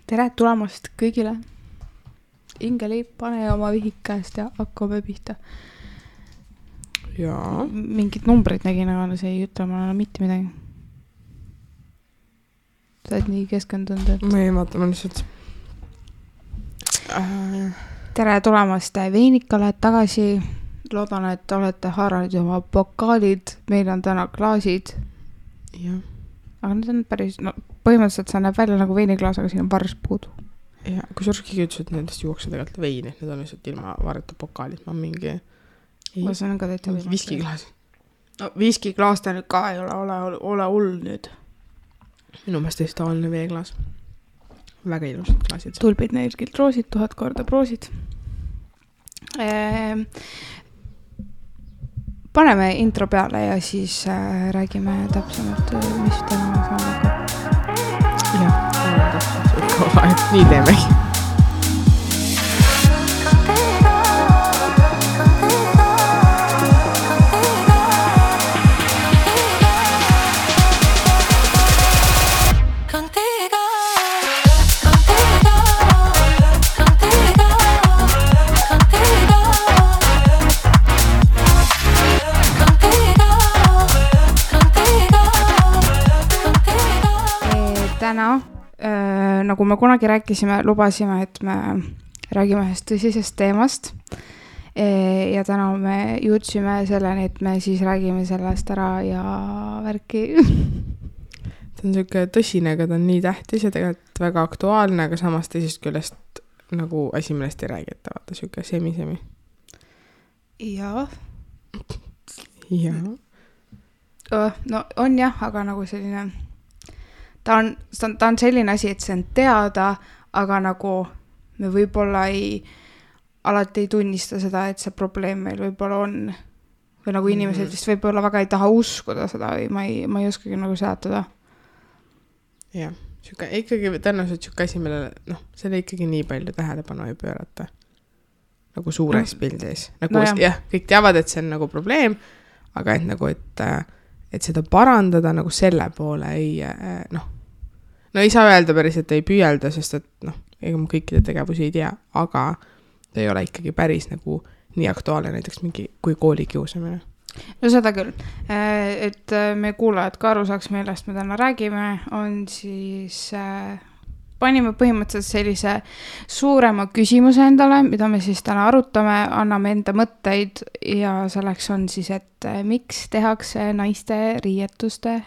Tere tulemast kõigile. Ingeli, pane oma vihik käest ja hakkame pihta. Jaa. Mingid numbrid nägin, aga see ei ütle mulle mitte midagi. Sa oled nii keskendunud, et... Ma ei vaata, ma lihtsalt... Tere tulemast Veinikale tagasi. Loodan, et olete haaranud oma pokaalid. Meil on täna klaasid. Jah. Aga need on päris... No, põhimõtteliselt see näeb välja nagu veiniklaas, aga siin on varst puudu. Ja, kui sa keegi ütles, et nendest juuakse tegelikult veini, et need on lihtsalt ilma vareta pokaalid. Ma mingi... Ma see on ka täitsa mingi viskiklaas. No, viskiklaas ta nüüd ka ei ole hull nüüd. Minu meelest tõesti tavaline veeklaas. Väga ilusad klaasid. Tulbid neilgilt roosid, 1000 korda proosid. Paneme intro peale ja siis räägime täpsemalt, mis täna saame. Jah, nii teemegi. Täna, nagu me kunagi rääkisime, lubasime, et me räägime ühest tõsisest teemast ja täna me jõudsime selleni, et me siis räägime sellest ära ja värki. Ta on selline tõsine, aga ta on nii tähtis ja tegelikult väga aktuaalne, aga samas teisest küljest nagu asi millest ei räägita, vaata selline semi-semi. Jaa. Jaa. No on jah, aga nagu selline... Ta on selline asi, et see on teada, aga nagu me võib-olla alati ei tunnista seda, et see probleem meil võib-olla on. Või nagu inimesed vist võib-olla väga ei taha uskuda seda või ma ei oskagi nagu seletada. Jah, ikkagi tõenäoliselt siuke asi, millele, selle ikkagi nii palju tähelepanu ei pöörata. Nagu suures pildis. Nagu, jah, kõik teavad, et see on nagu probleem, aga et nagu, et seda parandada nagu selle poole ei saa öelda päris, et ei püüelda, sest et ega ma kõikide tegevusi ei tea, aga ta ei ole ikkagi päris nagu nii aktuaalne näiteks mingi kui kooli kiusamine. No seda küll, et me kuulajad ka aru saaks, millest me täna räägime, on siis panime põhimõtteliselt sellise suurema küsimuse endale, mida me siis täna arutame, anname enda mõtteid ja selleks on siis, et miks tehakse naiste riietuste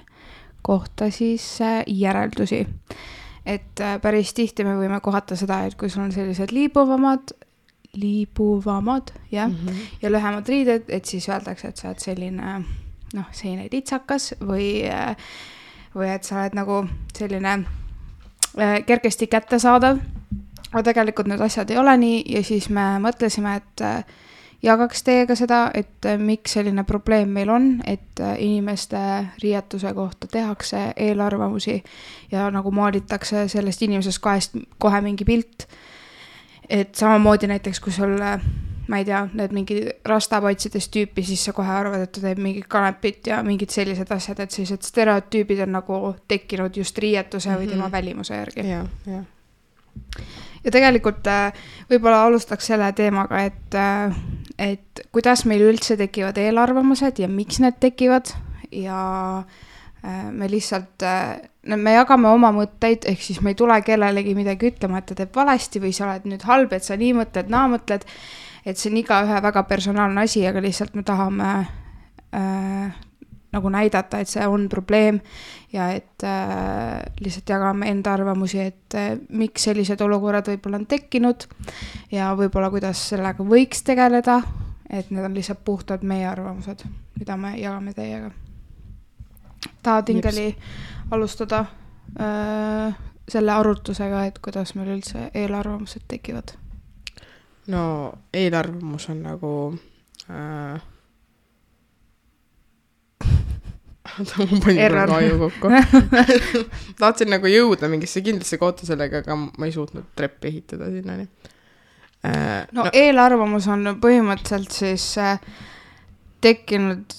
kohta siis järeldusi. Et päris tihti me võime kohata seda, et kui sul on sellised liibuvamad, jah, ja lühemad riided, et siis öeldakse, et sa oled selline, selline litsakas või et sa oled nagu selline kergesti kättesaadav. Aga tegelikult need asjad ei ole nii ja siis me mõtlesime, et jagaks teiega seda, et miks selline probleem meil on, et inimeste riietuse kohta tehakse eelarvamusi ja nagu maalitakse sellest inimesest kohe mingi pilt. Et samamoodi näiteks, kui sul, ma ei tea, need mingi rastapaitsidest tüüpi, siis sa kohe arvad, et ta teeb mingi kanepit ja mingid sellised asjad, et sellised stereotüübid on nagu tekkinud just riietuse või tema välimuse järgi. Jah. Ja tegelikult võib-olla alustaks selle teemaga, et kuidas meil üldse tekivad eelarvamused ja miks need tekivad ja me lihtsalt, me jagame oma mõtteid, ehk siis me ei tule kellelegi midagi ütlema, et ta teeb valesti või sa oled nüüd halb, et sa nii mõtled, naa mõtled, et see on iga ühe väga personaalne asi, aga lihtsalt me tahame nagu näidata, et see on probleem ja et lihtsalt jagame enda arvamusi, et miks sellised olukorrad võib-olla on tekkinud ja võib-olla kuidas sellega võiks tegeleda, et need on lihtsalt puhtad meie arvamused, mida me jagame teiega. Tahad Ingeli alustada selle arutusega, et kuidas meil üldse eelarvamused tekivad? No eelarvamus on nagu... ma panin praegu aju kokku. Tahtsin nagu jõuda mingisse kindlasse kohta sellega, aga ma ei suutnud treppi ehitada sinnani. Eelarvamus on põhimõtteliselt siis tekkinud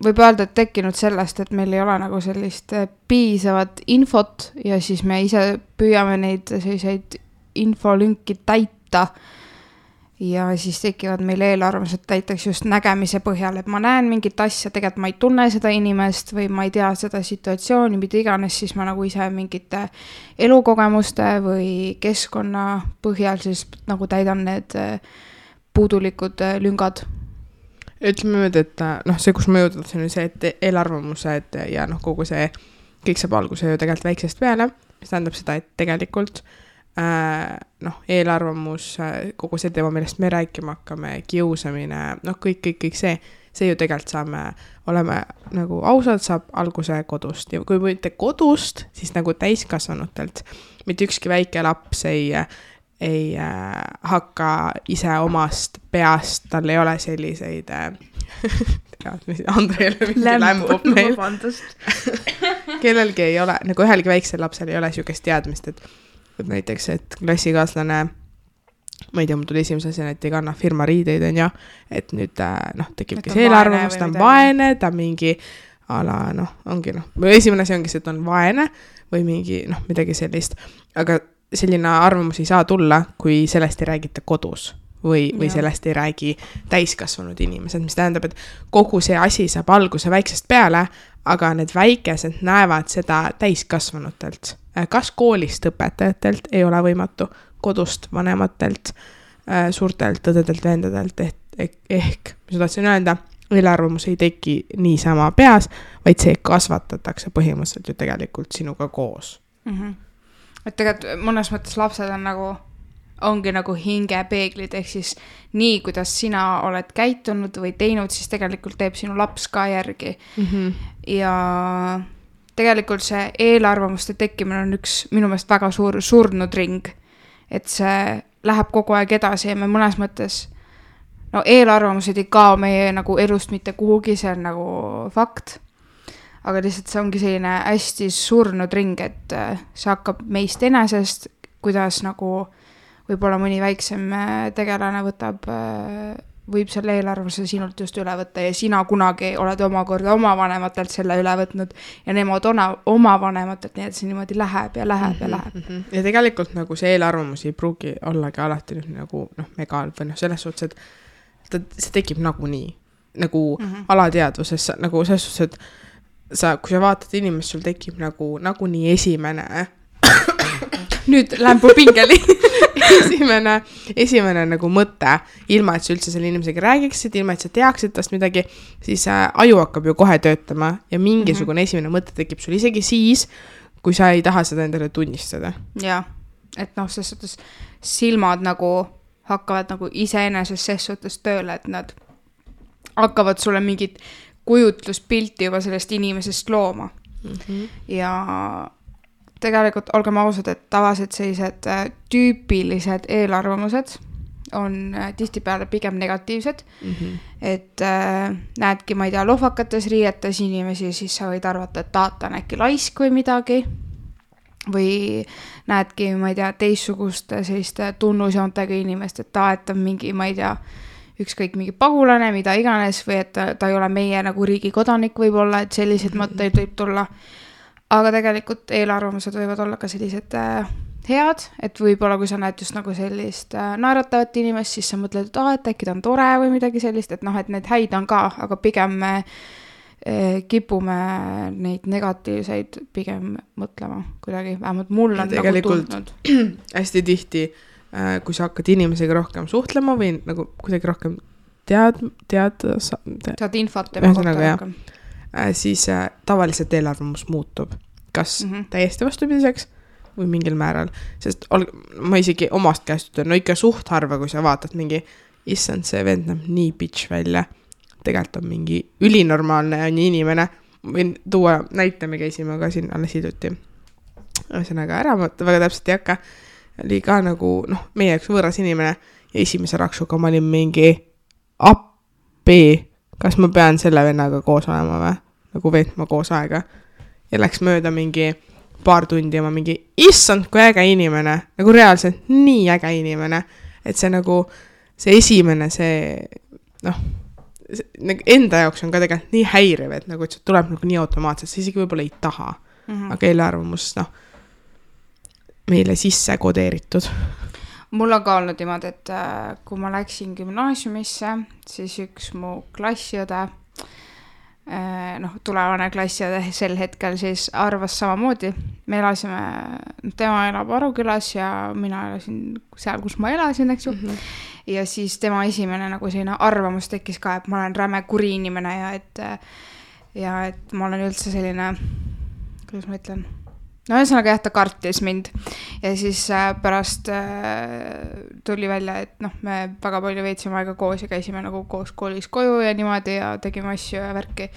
võib öelda, et tekkinud sellest, et meil ei ole nagu sellist piisavat infot ja siis me ise püüame neid selliseid infolünki täita ja siis tekivad meil eelarvamused näiteks just nägemise põhjal, et ma näen mingit asja, tegelikult ma ei tunne seda inimest või ma ei tea seda situatsiooni, mida iganes, siis ma nagu ise mingite elukogemuste või keskkonna põhjal siis nagu täidan need puudulikud lüngad. Ütleme nüüd, et see, kus ma jõudnud, see on see, et eelarvamused ja kogu see, kõik saab alguse ju tegelikult väiksest peale, mis tähendab seda, et tegelikult eelarvamus, kogu see teema, millest me rääkima hakkame, kiusamine, kõik see ju tegelikult oleme nagu ausalt, saab alguse kodust ja kui mitte kodust, siis nagu täiskasvanutelt, mitte ükski väike laps ei hakka ise omast peast, tal ei ole selliseid Andreele mingi lämbub meil kellelgi ei ole, nagu ühelgi väiksel lapsel ei ole sihukest teadmist, et näiteks, et klassikaaslane, ma ei tea, mul tuli esimese asjana, et ei kanna firma riideid, on ja, et nüüd tekibki see eelarvamus, ta on vaene, ta mingi ala, ongi esimene asi ongi see, et on vaene või mingi, midagi sellist, aga selline arvamus ei saa tulla, kui sellest ei räägita kodus või sellest ei räägi täiskasvanud inimesed, mis tähendab, et kogu see asi saab alguse väiksest peale, aga need väikesed näevad seda täiskasvanutelt. Kas koolist õpetajatelt ei ole võimatu, kodust vanematelt, suurtelt õdedelt, vendadelt, ehk mis tahtsin öelda, eelarvamus ei teki niisama peas, vaid see kasvatatakse põhimõtteliselt ju tegelikult sinuga koos. Mm-hmm. Et tegelikult mõnes mõttes lapsed on ongi nagu hingepeeglid, ehk siis nii, kuidas sina oled käitunud või teinud, siis tegelikult teeb sinu laps ka järgi. Mm-hmm. Ja tegelikult see eelarvamuste tekkimine on üks minu meelest väga suur surnud ring, et see läheb kogu aeg edasi ja me mõnes mõttes, eelarvamused ei kao meie nagu elust mitte kuhugi, see on nagu fakt, aga lihtsalt see ongi selline hästi surnud ring, et see hakkab meist enesest, kuidas nagu võib-olla mõni väiksem tegelane võib selle eelarvuse sinult just üle võtta ja sina kunagi oled omakorda oma vanematelt selle üle võtnud ja nemad oma vanematelt, nii et see niimoodi läheb ja läheb ja läheb. Ja tegelikult nagu see eelarvamus ei pruugi ollagi alati nagu megal või selles suhtes, et see tekib nagunii, nagu alateadvuses, nagu selles suhtes, et kui sa vaatad inimest, sul tekib nagunii esimene nüüd lämbu pingeli esimene nagu mõte, ilma et sa üldse selle inimesega räägiksid, ilma et sa teaksid tast midagi, siis aju hakkab ju kohe töötama ja mingisugune esimene mõte tekib sul isegi siis, kui sa ei taha seda endale tunnistada. Ja, et selles suhtes silmad nagu hakkavad nagu iseenesest ses suhtes tööle, et nad hakkavad sulle mingit kujutluspilti juba sellest inimesest looma. Ja tegelikult olgem ausad, et tavaliselt sellised tüüpilised eelarvamused on tihtipeale pigem negatiivsed, et näedki, ma ei tea, lohvakates riietes inimesi, siis sa võid arvata, et ta on äkki laisk või midagi, või näedki, ma ei tea, teistsugust selliste tunnusjoontega inimest, et ta on mingi, ma ei tea, ükskõik mingi pagulane, mida iganes, või et ta ei ole meie nagu riigi kodanik võib-olla, et sellised mõtteid võib tulla. Aga tegelikult eelarvamused võivad olla ka sellised head, et võib-olla kui sa näed just nagu sellist naeratavat inimest, siis sa mõtled, et et äkki ta on tore või midagi sellist, et et need häid on ka, aga pigem me kipume neid negatiivseid pigem mõtlema kuidagi, vähemalt mul on nagu tundnud. Hästi tihti, kui sa hakkad inimesega rohkem suhtlema või nagu kuidagi rohkem saad infot tema kohta rohkem. Siis tavaliselt eelarvamus muutub. Kas täiesti vastupidiseks või mingil määral. Sest ma isegi omast käest ütlen, ikka suht harva, kui sa vaatad mingi, issand, see vend näeb nii bitch välja. Tegelikult on mingi ülinormaalne inimene. Võin tuua näite, me käisime ka siin alles hiljuti. Ühesõnaga ära, ma väga täpselt ei hakka. Oli ka nagu, meie üks võõras inimene ja esimese raksuga ma olin mingi appi. Kas ma pean selle vennaga koos olema või? Nagu veetma koos aega. Ja läks mööda mingi paar tundi ja ma mingi, issand, kui äge inimene. Nagu reaalselt nii äge inimene. Et see nagu, see esimene, see, enda jaoks on ka tegelikult nii häiriv, et nagu, et see tuleb nagu nii automaatselt, sa isegi võib-olla ei taha. Aga eelarvamus, noh, meile sisse kodeeritud. Mul on ka olnud niimoodi, et kui ma läksin gümnaasiumisse, siis üks mu klassiõde, tulevane klassiõde sel hetkel siis arvas samamoodi. Me elasime, tema elab Arukülas ja mina elasin seal, kus ma elasin, eks ju. Ja siis tema esimene nagu selline arvamus tekkis ka, et ma olen räme kuri inimene ja et ma olen üldse selline, kuidas ma ütlen, no ühesõnaga jah, ta kartis mind ja siis pärast tuli välja, et me väga palju veetsime aega koos ja käisime nagu koos koolis koju ja niimoodi ja tegime asju ja värki,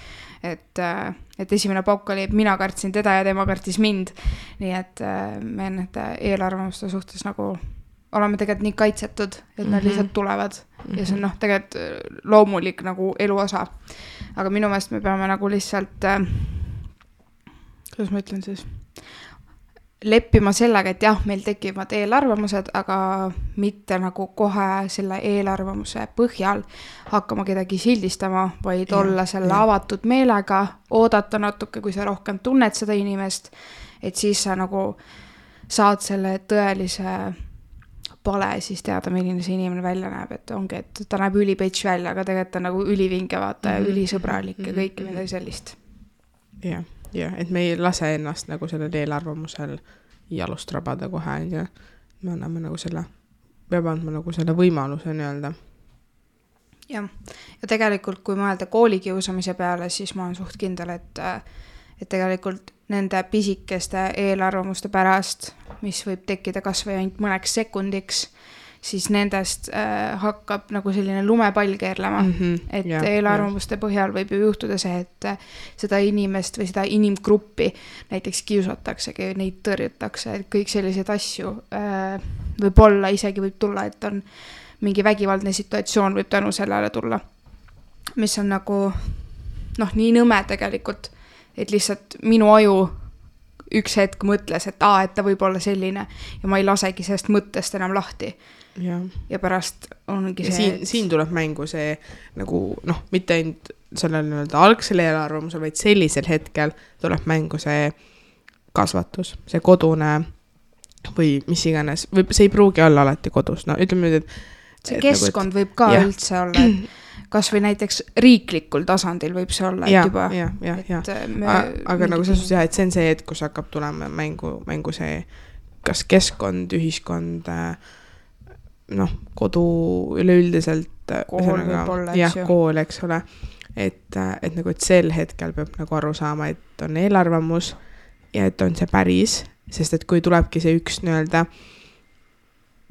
et esimene pauk oli, et mina kartsin teda ja tema kartis mind, nii et me nende eelarvamuste suhtes nagu oleme tegelikult nii kaitsetud, et nad lihtsalt tulevad ja see on tegelikult loomulik nagu elu osa, aga minu meelest me peame nagu lihtsalt kuidas ma ütlen siis, leppima sellega, et jah, meil tekivad eelarvamused, aga mitte nagu kohe selle eelarvamuse põhjal hakkama kedagi sildistama, vaid olla selle avatud meelega, oodata natuke, kui sa rohkem tunned seda inimest, et siis sa nagu saad selle tõelise pale siis teada, milline see inimene välja näeb, et ongi, et ta näeb ülipetš välja, aga tegelikult on nagu ülivinge vaata ja ülisõbralik ja kõike midagi sellist. Jah. Ja, et me ei lase ennast nagu sellel eelarvamusel jalust rabada kohe ja me anname nagu selle, peab andma nagu selle võimaluse nii-öelda. Ja tegelikult kui mõelda koolikiusamise peale, siis ma olen suht kindel, et tegelikult nende pisikeste eelarvamuste pärast, mis võib tekkida kas või ainult mõneks sekundiks, siis nendest hakkab nagu selline lumepall keerlema, et eelarvamuste põhjal võib ju juhtuda see, et seda inimest või seda inimgruppi näiteks kiusataksegi, neid tõrjutakse, et kõik sellised asju võib-olla isegi võib tulla, et on mingi vägivaldne situatsioon võib tänu sellele tulla, mis on nagu nii nõme tegelikult, et lihtsalt minu aju üks hetk mõtles, et ta võib olla selline ja ma ei lasegi sellest mõttest enam lahti. Ja pärast ongi see... Siin tuleb mängu see nagu, mitte ainult sellel algsel eelarvamusel, vaid sellisel hetkel tuleb mängu see kasvatus, see kodune või mis iganes, see ei pruugi olla alati kodus, ütleme nüüd, et see keskkond võib ka üldse olla, et kas või näiteks riiklikul tasandil võib see olla, et juba aga nagu selles suhtes et see on see hetk, kus hakkab tulema mängu see kas keskkond, ühiskond kodu üleüldiselt kool võib olla, kool, eks ole, et sel hetkel peab nagu aru saama, et on eelarvamus ja et on see päris, sest et kui tulebki see üks nii-öelda,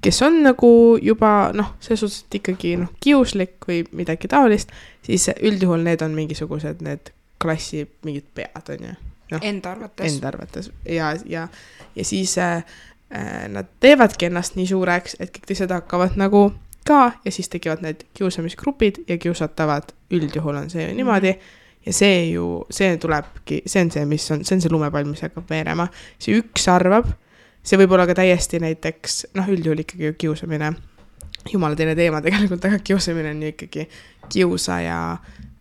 kes on nagu juba selles suhtes ikkagi kiuslik või midagi taolist, siis üldjuhul need on mingisugused need klassi mingid pead on ju. Enda arvates ja siis nad teevadki ennast nii suureks, et kõik teised hakkavad nagu ka ja siis tekivad need kiusamisgrupid ja kiusatavad üldjuhul on see ju niimoodi ja see tulebki, see on see lumepall, mis hakkab veerema, see üks arvab, see võib olla ka täiesti näiteks, üldjuhul ikkagi kiusamine, jumala teine teema tegelikult, aga kiusamine on ju ikkagi kiusaja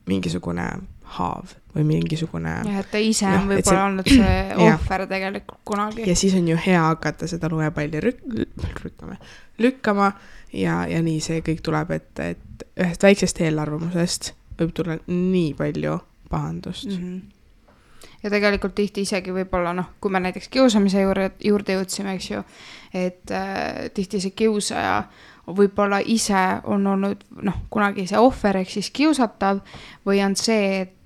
mingisugune haav või mingisugune... Ja, et ta ise on võib-olla olnud see ohver tegelikult kunagi. Ja siis on ju hea hakata seda lumepalli lükkama ja nii see kõik tuleb, et ühest väiksest eelarvamusest võib tulla nii palju pahandust. Ja tegelikult tihti isegi võib-olla, kui me näiteks kiusamise juurde jõudsime, eks ju, et tihti see kiusaja võib-olla ise on olnud kunagi see ohver ehk siis kiusatav või on see, et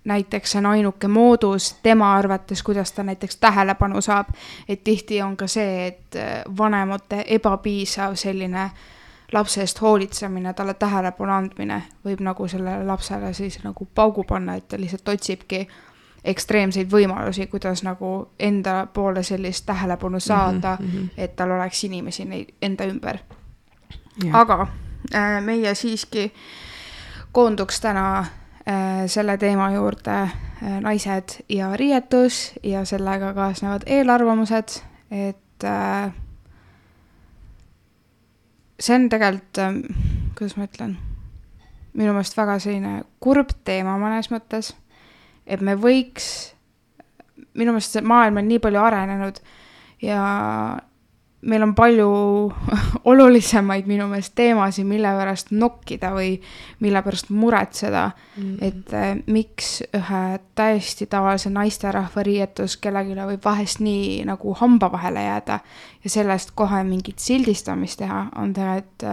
näiteks on ainuke moodus tema arvates, kuidas ta näiteks tähelepanu saab, et tihti on ka see, et vanemate ebapiisav selline lapse eest hoolitsemine, talle tähelepanu andmine võib nagu sellele lapsele siis nagu paugu panna, et ta lihtsalt otsibki ekstreemseid võimalusi, kuidas nagu enda poole sellist tähelepanu saada, et tal oleks inimesi enda ümber. Aga meie siiski koonduks täna selle teema juurde naised ja riietus ja sellega kaasnevad eelarvamused, et see on tegelikult, kuidas ma ütlen, minu meelest väga selline kurb teema mõnes mõttes, et me võiks, minu meelest see maailm on nii palju arenenud ja meil on palju olulisemaid minu meelest teemasid, mille pärast nokkida või mille pärast muretseda, et miks ühe täiesti tavalise naisterahva riietus kellegile võib vahest nii nagu hamba vahele jääda ja sellest kohe mingit sildistamist teha, on tegelikult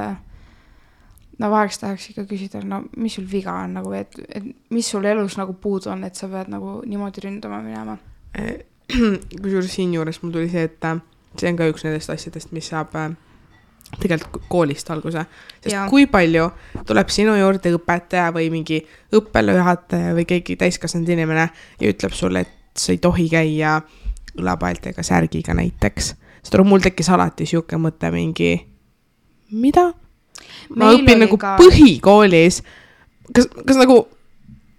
no vaheks tahaks ikka küsida, no mis sul viga on nagu, et mis sul elus nagu puudu on, et sa pead nagu niimoodi ründama minema? Kusjuures siin juures mul tuli see, et see on ka üks nendest asjadest, mis saab tegelikult koolist alguse. Sest kui palju tuleb sinu juurde õpetaja või mingi õppejuhataja või keegi täiskasvanud inimene ja ütleb sulle, et sa ei tohi käia õlapaeltega särgiga näiteks. Sest mul tekkis alati siuke mõte mingi, mida? Ma õpin nagu põhikoolis. Kas nagu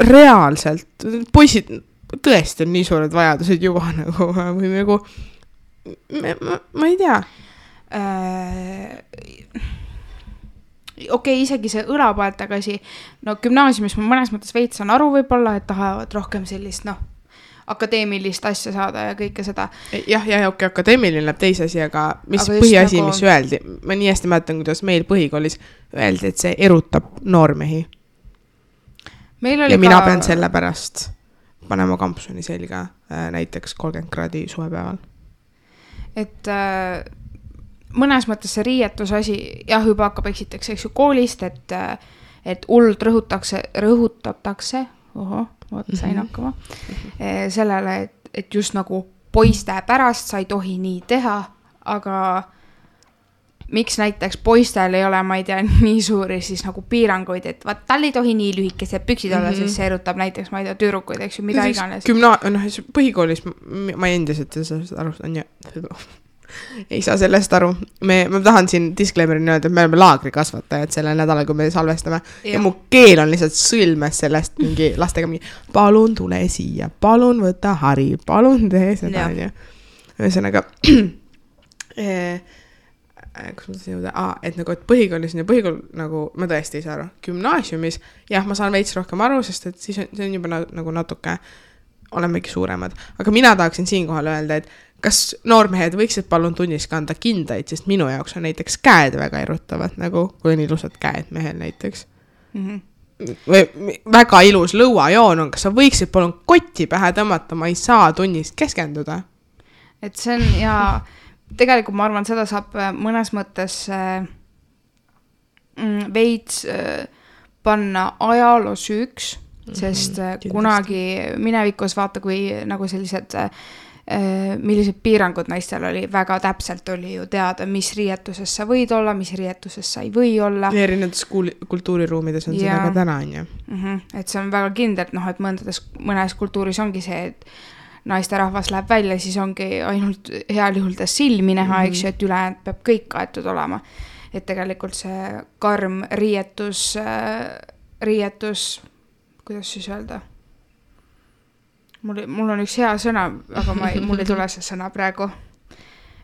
reaalselt poisid tõesti on nii suured vajadused juba nagu või nagu ma ei tea. Okei, isegi see õlapaeltega asi, no gümnaasiumis ma mõnes mõttes veits on aru võib-olla, et tahavad rohkem sellist, akadeemilist asja saada ja kõike seda. Jah, okei, akadeemiline läheb teise asi, aga mis põhiasi, mis öeldi? Ma nii hästi mäletan, kuidas meil põhikoolis öeldi, et see erutab noormehi. Ja mina pean selle pärast panema kampsuni selga näiteks 30 kraadi suvepäeval. Et mõnes mõttes see riietus asi, jah, juba hakkab eksiteks, eks ju, koolist, et hullult rõhutatakse, sain hakkama, sellele, et just nagu poiste pärast sa ei tohi nii teha, aga miks näiteks poistel ei ole, ma ei tea, nii suuri siis nagu piiranguid, et vaat tal ei tohi nii lühikesed püksid olla, siis see erutab näiteks, ma ei tea, tüdrukuid, eks ju, mida iganes. Põhikoolis ma endiselt aru, ei saa sellest aru. Ma tahan siin disclaimerini öelda, et me oleme laagrikasvatajad sellel nädalal, kui me salvestame. Ja mu keel on lihtsalt sõlmes sellest mingi lastega mingi, palun tule siia, palun võta hari, palun tee seda. Ühesõnaga, kus ma tasin jõuda? Et nagu, et põhikoolis ja põhikool, nagu ma tõesti ei saa aru. Gümnaasiumis, jah, ma saan veits rohkem aru, sest et siis see on juba nagu natuke, olemegi suuremad. Aga mina tahaksin siinkohal öelda, et kas noormehed võiksid palun tunnis kanda kindaid, sest minu jaoks on näiteks käed väga erutavad, nagu kui on ilusad käed mehel näiteks. Või väga ilus lõuajoon on, kas sa võiksid palun kotti pähe tõmmata, ma ei saa tunnis keskenduda. Et see on, ja tegelikult ma arvan, seda saab mõnes mõttes veits panna ajaloo süüks, sest kunagi minevikus vaata, kui nagu sellised millised piirangud naistel oli, väga täpselt oli ju teada, mis riietuses sa võid olla, mis riietuses sa ei või olla. Ja erinevates kultuuriruumides on seda ka täna, on ju. Et see on väga kindel, et mõnes kultuuris ongi see, et naisterahvas läheb välja, siis ongi ainult heal juhul ta silmi näha, eks ju, et ülejäänud peab kõik kaetud olema. Et tegelikult see karm riietus, kuidas siis öelda? Mul on üks hea sõna, aga mul ei tule see sõna praegu.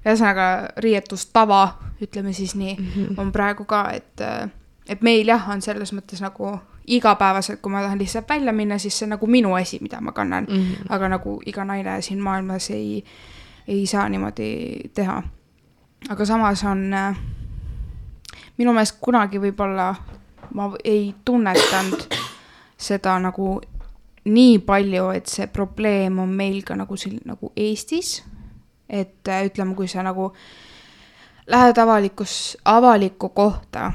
Ühesõnaga riietustava, ütleme siis nii, on praegu ka, et meil jah, on selles mõttes nagu igapäevaselt, kui ma tahan lihtsalt välja minna, siis see nagu minu asi, mida ma kannan. Aga nagu iga naine siin maailmas ei saa niimoodi teha. Aga samas on minu meelest kunagi võib-olla ma ei tunnetanud seda nagu nii palju, et see probleem on meil ka nagu Eestis, et ütleme, kui sa nagu lähed avalikku kohta,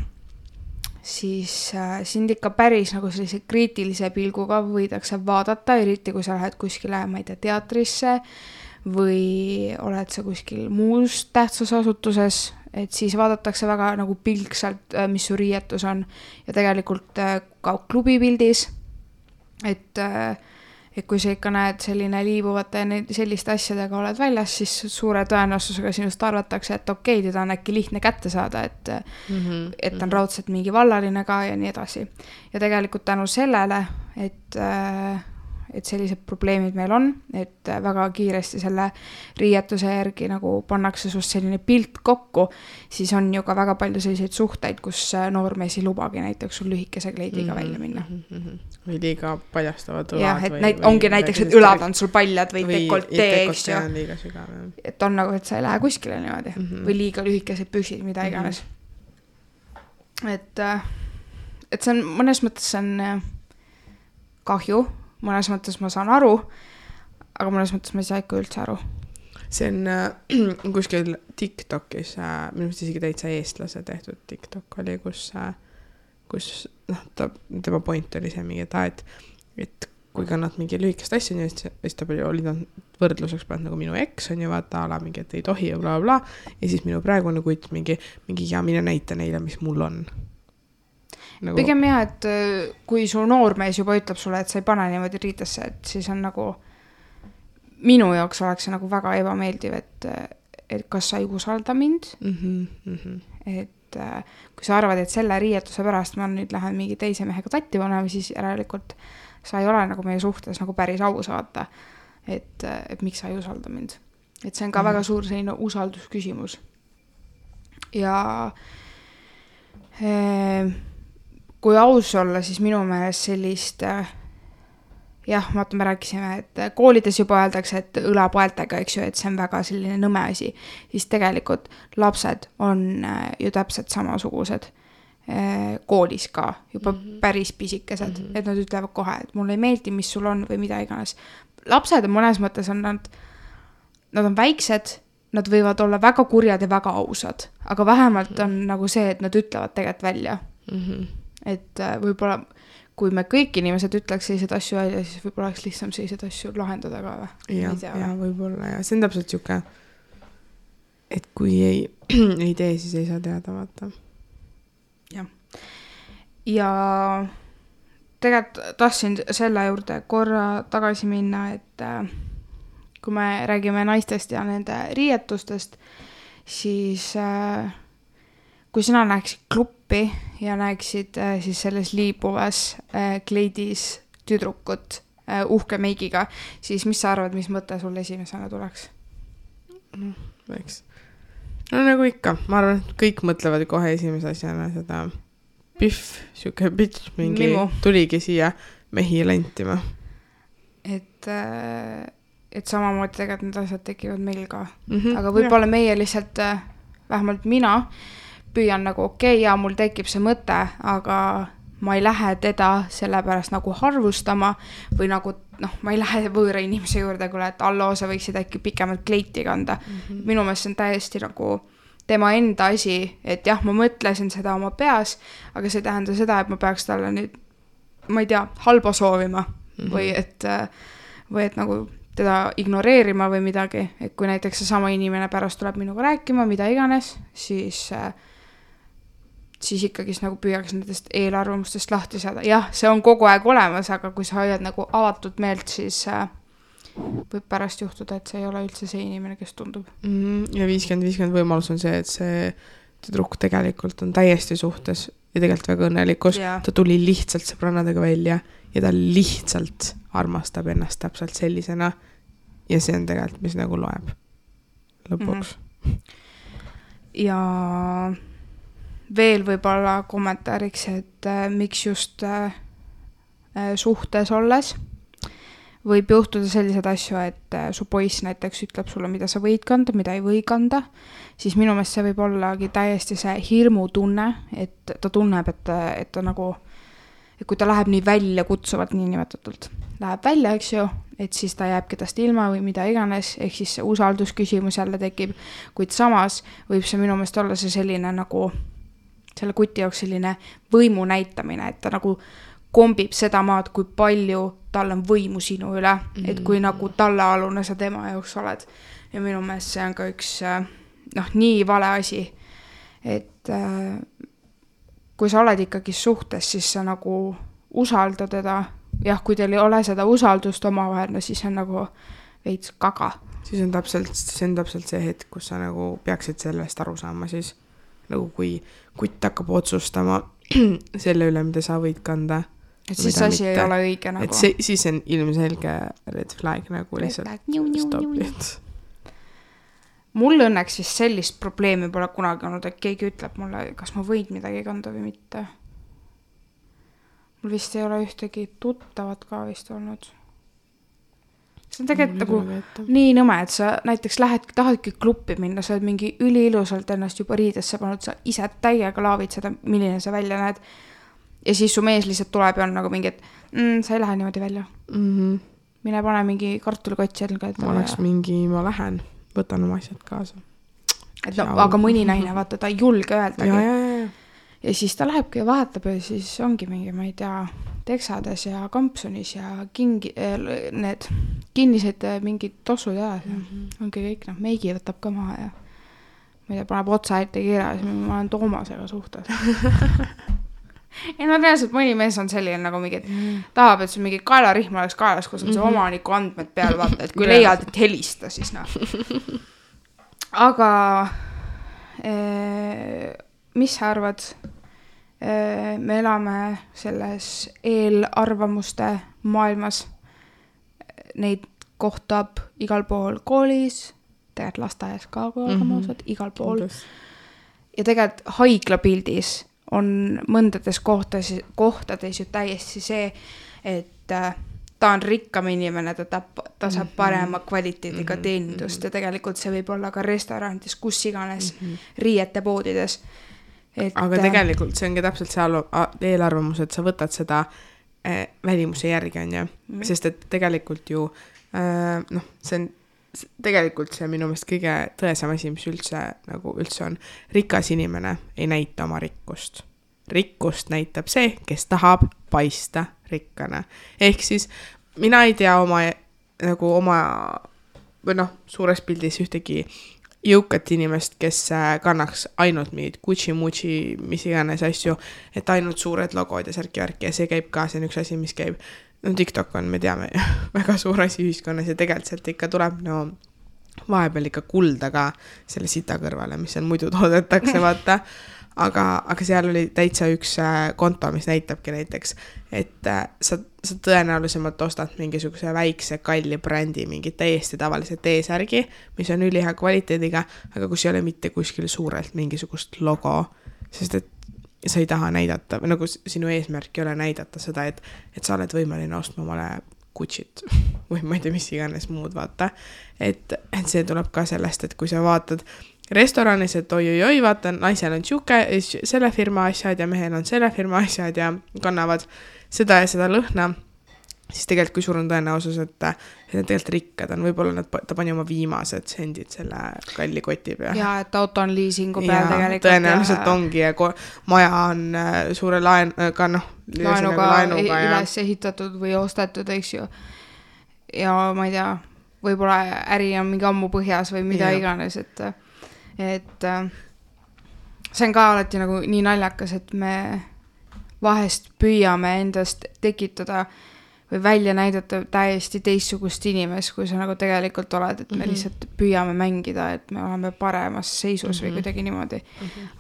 siis sind ikka päris nagu sellise kriitilise pilguga võidakse vaadata, eriti kui sa lähed kuskile, ma ei tea, teatrisse või oled sa kuskil muus tähtsas asutuses, et siis vaadatakse väga nagu pilksalt, mis su riietus on ja tegelikult ka klubipildis. Et kui sa ikka näed selline liibuvate ja selliste asjadega oled väljas, siis suure tõenäosusega sinust arvatakse, et okei, teda on äkki lihtne kätte saada, et on raudselt mingi vallaline ka ja nii edasi. Ja tegelikult tänu sellele, et sellised probleemid meil on, et väga kiiresti selle riietuse järgi nagu pannakse sust selline pilt kokku, siis on ju ka väga palju selliseid suhteid, kus noormees ei lubagi näiteks sul lühikese kleidiga välja minna. Või liiga paljastavad õlad. Jah, et ongi näiteks, et õlad on sul paljad või dekoltee, eks ju. Liiga sügav, et on nagu, et sa ei lähe kuskile niimoodi. Või liiga lühikesed püksid, mida iganes. Et see on, mõnes mõttes see on kahju, mõnes mõttes ma saan aru, aga mõnes mõttes ma ei saa ikka üldse aru. See on kuskil TikTokis, minu meelest isegi täitsa eestlase tehtud TikTok oli, kus tema point oli see mingi, et kui kannad mingi lühikest asja, siis ta oli võrdluseks pannud nagu minu eks on ju vaata ala mingi, et ei tohi ja bla bla ja siis minu praegune kutt mingi ja mine näita neile, mis mul on. Nagu... Pigem jah, et kui su noormees juba ütleb sulle, et sa ei pane niimoodi riitesse, et siis on nagu minu jaoks oleks see nagu väga ebameeldiv, et kas sa ei usalda mind, et kui sa arvad, et selle riietuse pärast ma nüüd lähen mingi teise mehega tatti panema, siis järelikult sa ei ole nagu meie suhtes nagu päris aus vaata, et miks sa ei usalda mind. Et see on ka väga suur selline usaldusküsimus. Ja kui aus olla, siis minu meelest sellist, jah, me rääkisime, et koolides juba öeldakse, et õlapoeltega, eks ju, et see on väga selline nõme asi, siis tegelikult lapsed on ju täpselt samasugused koolis ka, juba päris pisikesed, et nad ütlevad kohe, et mulle ei meeldi, mis sul on või mida iganes. Lapsed on mõnes mõttes on nad on väiksed, nad võivad olla väga kurjad ja väga ausad, aga vähemalt on nagu see, et nad ütlevad tegelikult välja. Et võib-olla, kui me kõik inimesed ütleks sellised asju välja, siis võib-olla oleks lihtsam sellised asju lahendada ka või? Ja võib-olla, ja see on täpselt siuke, et kui ei tee, siis ei saa teada, vaata. Ja tegelikult tahtsin selle juurde korra tagasi minna, et kui me räägime naistest ja nende riietustest, siis kui sina näeksid kluppi ja näeksid siis selles liibuvas kleidis tüdrukut uhke meigiga, siis mis sa arvad, mis mõte sul esimesena tuleks? No nagu ikka, ma arvan, et kõik mõtlevad kohe esimese asjana seda pihv, siuke bitch, mingi Mimu. Tuligi siia mehi lentima. Et samamoodi tegelikult need asjad tekivad meil ka. Aga võib-olla meie lihtsalt, vähemalt mina, püüan nagu ja mul tekib see mõte, aga ma ei lähe teda sellepärast nagu harvustama või nagu, ma ei lähe võõra inimese juurde, kuule, et alloo, sa võiksid äkki pikemalt kleiti kanda. Minu meelest see on täiesti nagu tema enda asi, et jah, ma mõtlesin seda oma peas, aga see tähendab seda, et ma peaks talle nüüd, ma ei tea, halba soovima või et nagu teda ignoreerima või midagi, et kui näiteks see sama inimene pärast tuleb minuga rääkima, mida iganes, siis ikkagi nagu püüaks nendest eelarvamustest lahti saada. Jah, see on kogu aeg olemas, aga kui sa hoiad nagu avatud meelt, siis võib pärast juhtuda, et see ei ole üldse see inimene, kes tundub. Ja 50-50 võimalus on see, et see tüdruk tegelikult on täiesti suhtes ja tegelikult väga õnnelikus. Ta tuli lihtsalt sõbrannadega välja ja ta lihtsalt armastab ennast täpselt sellisena ja see on tegelikult, mis nagu loeb lõpuks. Ja veel võib-olla kommentaariks, et miks just suhtes olles võib juhtuda sellised asju, et su poiss näiteks ütleb sulle, mida sa võid kanda, mida ei või kanda, siis minu meelest see võib ollagi täiesti see hirmu tunne, et ta tunneb, et ta nagu, et kui ta läheb nii välja kutsuvalt nii nimetatult, läheb välja, eks ju, et siis ta jääb kedast ilma või mida iganes, ehk siis see usaldusküsimus jälle tekib, kuid samas võib see minu meelest olla see selline nagu selle kuti jaoks selline võimu näitamine, et ta nagu kombib seda maad, kui palju tal on võimu sinu üle, et kui nagu tallealune sa tema jaoks oled. Ja minu meelest see on ka üks nii vale asi, et kui sa oled ikkagi suhtes, siis sa nagu usalda teda. Jah, kui teil ei ole seda usaldust omavahel, siis on nagu veits kaga. Siis on täpselt see hetk, kus sa nagu peaksid sellest aru saama siis. Nagu kui kutt hakkab otsustama selle üle, mida sa võid kanda et siis asi ei ole õige nagu. Et siis on ilmselge red flag nagu lihtsalt stop it. Mul õnneks siis sellist probleemi pole kunagi olnud, et keegi ütleb mulle, kas ma võin midagi kanda või mitte. Mul vist ei ole ühtegi tuttavat ka vist olnud. See on tegelikult nagu nii nõme, et sa näiteks tahadki kluppi minna, sa oled mingi üliilusalt ennast juba riidesse pannud, sa ise täiega laavid seda, milline sa välja näed. Ja siis su mees lihtsalt tuleb ja on nagu mingi, et sa ei lähe niimoodi välja. Mine pane mingi kartulikott selga. Ma oleks mingi, ma lähen, võtan oma asjad kaasa. Et no, aga mõni naine, vaata, ta ei julge öeldagi. Ja siis ta lähebki ja vahetab ja siis ongi mingi, ma ei tea, teksades ja kampsunis ja need kinnised mingid tossud ja ongi kõik, meigi võtab ka maha ja ma ei tea, paneb otsa ette kirja ja ma olen Toomasega suhtes. Ja no reaalselt mõni mees on selline nagu mingi, tahab, et see mingi kaelarihm oleks kaelas, kus on see omaniku andmed peal, vaata, et kui leiad, et helista, siis Aga mis sa arvad? Me elame selles eelarvamuste maailmas. Neid kohtab igal pool koolis, tegelikult lasteaias ka, kui olgamausad, igal pool. Ja tegelikult haiglapildis on mõndades kohtades ju täiesti see, et ta on rikkam inimene, ta saab parema kvaliteediga teenindust ja tegelikult see võib olla ka restorantis, kus iganes riiete poodides. Aga tegelikult see ongi täpselt see eelarvamus, et sa võtad seda välimuse järgi, on ju. Sest et tegelikult ju see on tegelikult see minu meelest kõige tõesam asi, mis üldse on. Rikas inimene ei näita oma rikkust. Rikkust näitab see, kes tahab paista rikkana. Ehk siis mina ei tea oma suures pildis ühtegi jõukat inimest, kes kannaks ainult mingid Gucci-Mucci, mis iganes asju, et ainult suured logod ja särki ja see käib ka, see on üks asi, mis käib. TikTok on, me teame, väga suur asi ühiskonnas ja tegelikult sealt ikka tuleb vahepeal ikka kulda ka selle sita kõrvale, mis seal muidu toodetakse, vaata. Aga seal oli täitsa üks konto, mis näitabki näiteks, et sa tõenäolisemalt ostad mingisuguse väikse kalli brändi, mingi täiesti tavalise T-särgi, mis on ülihea kvaliteediga, aga kus ei ole mitte kuskil suurelt mingisugust logo, sest et sa ei taha näidata, nagu sinu eesmärk ei ole näidata seda, et sa oled võimeline ostma omale Gucci't või ma ei tea, mis iganes muud, vaata. Et see tuleb ka sellest, et kui sa vaatad restoranis, et oi, vaata, naisel on selle firma asjad ja mehel on selle firma asjad ja kannavad seda ja seda lõhna, siis tegelikult kui suur on tõenäosus, et need tegelikult rikkad on, võib-olla ta pani oma viimased sendid selle kalli koti peal. Ja, et auto on liising'u peal tegelikult. Tõenäoliselt ongi ja maja on suure laenuga üles ehitatud või ostetud, eks ju. Ja ma ei tea, võib-olla äri on mingi ammu põhjas või mida iganes, et see on ka alati nagu nii naljakas, et me vahest püüame endast tekitada või välja näidata täiesti teistsugust inimest, kui sa nagu tegelikult oled, et me lihtsalt püüame mängida, et me oleme paremas seisus või kuidagi niimoodi.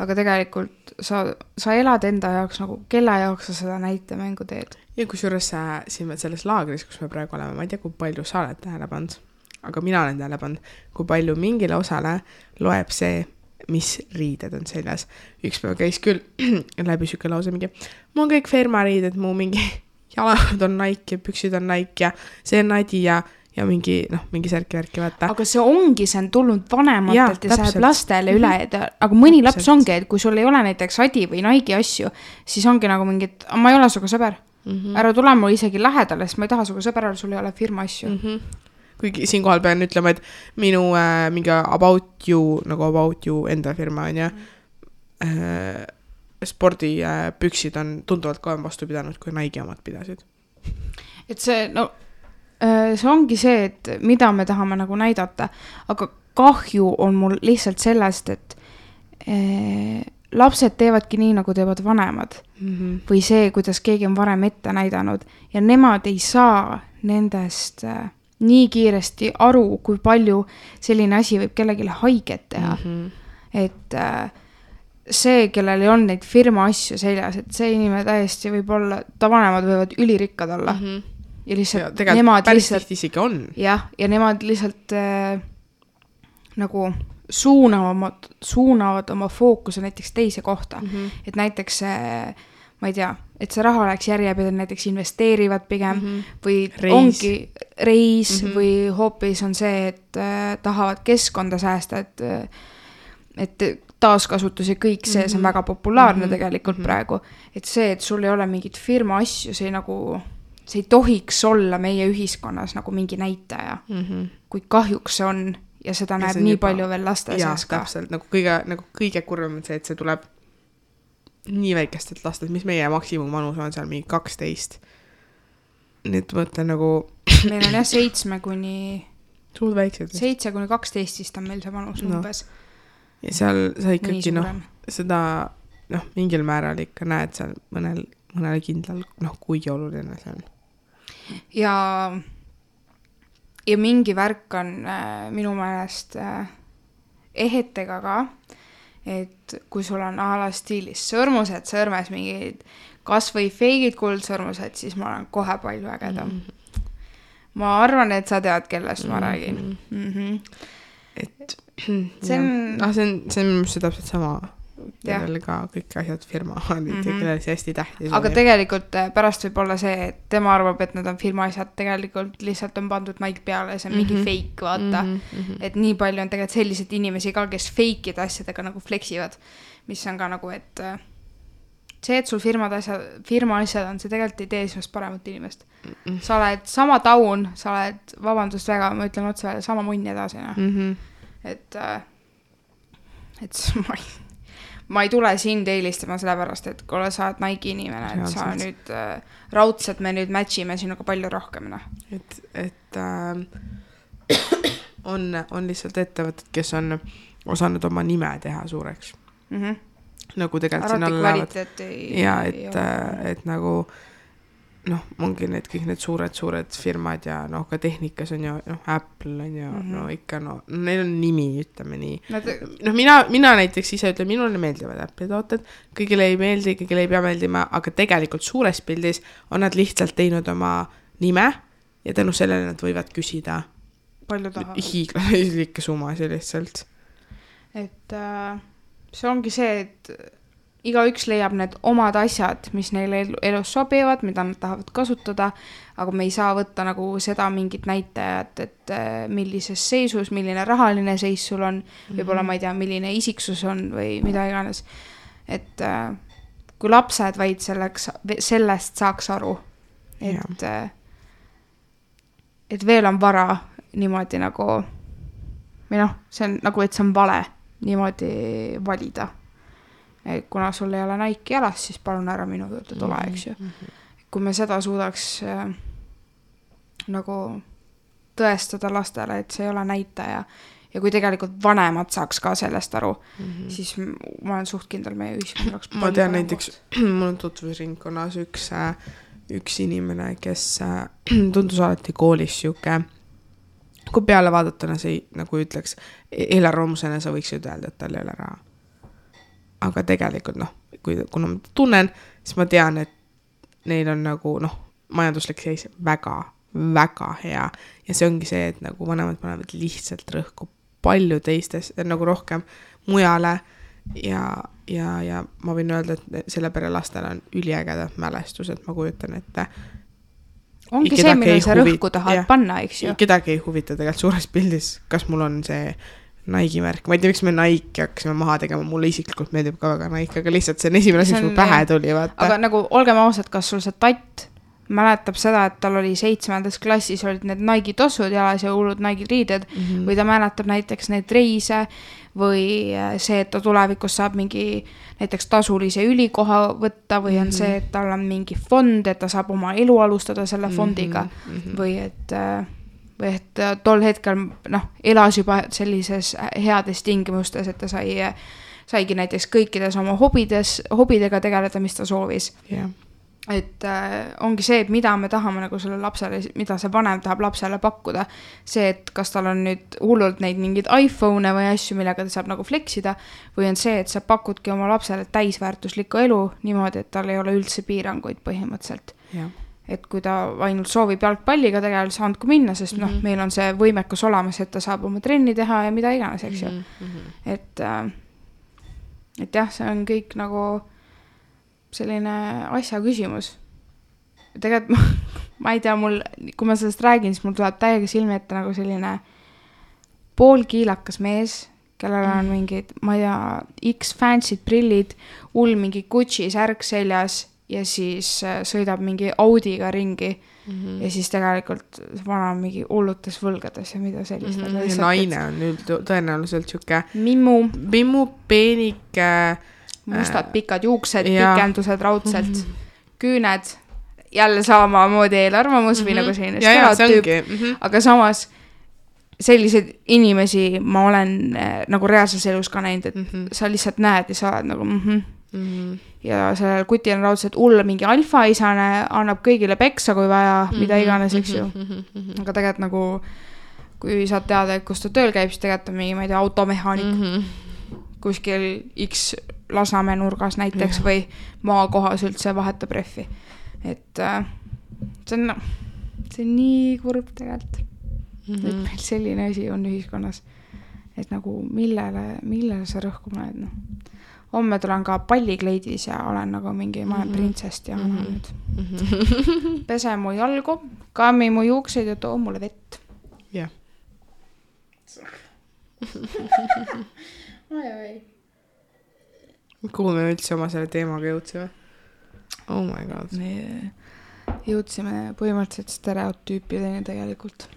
Aga tegelikult sa elad enda jaoks nagu, kelle jaoks sa seda näitemängu teed. Ja kusjuures siin selles laagris, kus me praegu oleme, ma ei tea, kui palju sa oled tähele pannud, aga mina olen tähele pannud, kui palju mingile osale loeb see, mis riided on seljas. Üks päev käis küll läbi süke lause mingi, mul on kõik firmariided, mu mingi jalad on Nike ja püksid on Nike ja see on Nadi ja mingi särki-värki vaata. Aga see on tulnud vanematelt ja see lastele üle. Aga mõni laps ongi, et kui sul ei ole näiteks Adi või Nike asju, siis ongi nagu mingi, et ma ei ole suga sõber. Ära tule mul isegi lähedale, sest ma ei taha suga sõber, sul ei ole firma asju. Kuigi siin kohal pean ütlema, et minu mingi About You enda firma on ja spordipüksid on tunduvalt kauem vastu pidanud, kui Nike omad pidasid. Et see ongi see, et mida me tahame nagu näidata, aga kahju on mul lihtsalt sellest, et lapsed teevadki nii, nagu teevad vanemad või see, kuidas keegi on varem ette näidanud ja nemad ei saa nendest nii kiiresti aru, kui palju selline asi võib kellelegi haiget teha. Et see, kellel ei olnud neid firma asju seljas, et see inimene täiesti võib olla, ta vanemad võivad ülirikkad olla. Ja lihtsalt ja nemad päris lihtsalt tihti isegi on. Jah, ja nemad lihtsalt nagu suunavad oma fookuse näiteks teise kohta. Et näiteks ma ei tea, et see raha oleks järjepidevalt, näiteks investeerivad pigem või ongi reis või hoopis on see, et tahavad keskkonda säästa, et taaskasutus ja kõik see on väga populaarne tegelikult praegu. Et see, et sul ei ole mingit firma asju, see ei tohiks olla meie ühiskonnas nagu mingi näitaja. Kui kahjuks see on ja seda näeb nii palju veel laste seas ka. Täpselt, nagu kõige kurvem on see, et see tuleb nii väikestelt lastelt, mis meie maksimumvanus on seal mingi 12. Nii et mõtlen nagu... Meil on jah 7 kuni 12 vist on meil see vanus umbes. Ja seal sa ikkagi seda mingil määral ikka näed seal mõnele kindlal, kui oluline see on. Ja mingi värk on minu meelest ehetega ka, et kui sul on ala stiilis sõrmused, sõrmes mingid kas või feigid kuldsõrmused, siis ma olen kohe palju ägedam. Ma arvan, et sa tead, kellest ma räägin. Et see on see täpselt sama. Kellel ka kõik asjad firma on, kellel see hästi tähtis. Aga tegelikult pärast võib olla see, et tema arvab, et nad on firma asjad, tegelikult lihtsalt on pandud Nike peale, see on mingi fake, vaata. Et nii palju on tegelikult sellised inimesi ka, kes fake'id asjadega nagu fleksivad, mis on ka nagu, et see, et sul firma asjad on, see tegelikult ei tee sinust paremat inimest. Sa oled sama taun, sa oled, vabandust väga, ma ütlen otse välja, sama munn edasi. Et ma ei tule sind eelistama sellepärast, et kui sa oled Nike inimene, et sa nüüd raudselt me nüüd matchime sinuga palju rohkem. Et on lihtsalt ettevõtted, kes on osanud oma nime teha suureks. Nagu tegelikult siin alla lähevad. Ja et nagu ongi kõik need suured firmad ja ka tehnikas on ju, Apple on ju, ikka neil on nimi, ütleme nii. Mina näiteks ise ütlen, minule meeldivad Apple'i tooted, kõigile ei meeldi, kõigile ei pea meeldima, aga tegelikult suures pildis on nad lihtsalt teinud oma nime ja tänu sellele nad võivad küsida hiiglaslikke summasid lihtsalt. Et see ongi see, et igaüks leiab need omad asjad, mis neile elus sobivad, mida nad tahavad kasutada, aga me ei saa võtta nagu seda mingit näitajat, et millises seisus, milline rahaline seis sul on, võib-olla ma ei tea, milline isiksus on või mida iganes. Et kui lapsed vaid sellest saaks aru, et veel on vara niimoodi nagu, või see on nagu, et see on vale niimoodi valida. Kuna sul ei ole Nike jalas, siis palun ära minu juurde tule, eks ju. Kui me seda suudaks nagu tõestada lastele, et see ei ole näitaja ja kui tegelikult vanemad saaks ka sellest aru, siis ma olen suht kindel meie ühiskond. Ma tean näiteks, mul on tutvusringkonnas üks inimene, kes tundus alati koolis siuke, kui peale vaadatuna see nagu ütleks, eelarvamusena sa võiks ju öelda, et tal ei ole raha. Aga tegelikult kuna ma tunnen, siis ma tean, et neil on nagu majanduslik seis väga, väga hea ja see ongi see, et nagu vanemad panevad lihtsalt rõhku palju teistes, nagu rohkem mujale ja ma võin öelda, et selle pere lastel on üliägedad mälestused, ma kujutan, et ongi see, mille sa rõhku tahad panna, eks ju. Kedagi ei huvita tegelikult suures pildis, kas mul on see Nike märk. Ma ei tea, miks me Nike hakkasime maha tegema. Mulle isiklikult meeldib ka väga Nike, aga lihtsalt see on esimene asi, mis mul pähe tuli. Vaata. Aga nagu olgem ausad, kas sul see tatt mäletab seda, et tal oli 7. klassis olid need Nike tossud jalas ja hullud Nike riided või ta mäletab näiteks neid reise või see, et ta tulevikus saab mingi näiteks tasulise ülikoha võtta või on see, et tal on mingi fond, et ta saab oma elu alustada selle fondiga või et tol hetkel elas juba sellises heades tingimustes, et ta saigi näiteks kõikides oma hobidega tegeleda, mis ta soovis. et ongi see, et mida me tahame nagu selle lapsele, mida see vanem tahab lapsele pakkuda. See, et kas tal on nüüd hullult neid mingeid iPhone'e või asju, millega ta saab nagu fleksida, või on see, et sa pakudki oma lapsele täisväärtuslikku elu niimoodi, et tal ei ole üldse piiranguid põhimõtteliselt. Ja. Et kui ta ainult soovib jalgpalliga tegelikult saandku minna, sest meil on see võimekus olemas, et ta saab oma trenni teha ja mida iganes, eks ju. Et jah, see on kõik nagu selline asja küsimus. Tegelikult ma ei tea, kui ma sellest räägin, siis mul tuleb täiega silmi ette nagu selline poolkiilakas mees, kellel on mingid, ma ei tea, X fancy'd prillid, mingi Gucci särk seljas ja siis sõidab mingi Audiga ringi ja siis tegelikult vana mingi hullutes võlgades ja mida sellist. Ja naine on tõenäoliselt siuke mimmu, peenike mustad pikad juuksed, pikendused raudselt, küüned, jälle samamoodi eelarvamus või nagu selline stereotüüp, aga samas selliseid inimesi ma olen nagu reaalses elus ka näinud, et sa lihtsalt näed ja sa oled nagu ja sellel kutil on raudselt mingi alfaisane, annab kõigile peksa, kui vaja, mida iganes, eks ju. Aga tegelikult nagu, kui saad teada, et kus ta tööl käib, siis tegelikult on mingi, ma ei tea, automehaanik kuskil X Lasnamäe nurgas näiteks või maakohas üldse vahetab rehvi. Et see on nii kurb tegelikult. Et meil selline asi on ühiskonnas. Et nagu millele sa rõhku paned, noh. Homme tulen ka pallikleidis ja olen nagu mingi, ma olen printsest ja annan nüüd. Pese mu jalgu, kammi mu juukseid ja too mulle vett. Jah. Oi. Kuhu me üldse oma selle teemaga jõudsime? Oh my god. Me jõudsime põhimõtteliselt stereotüüpideni tegelikult.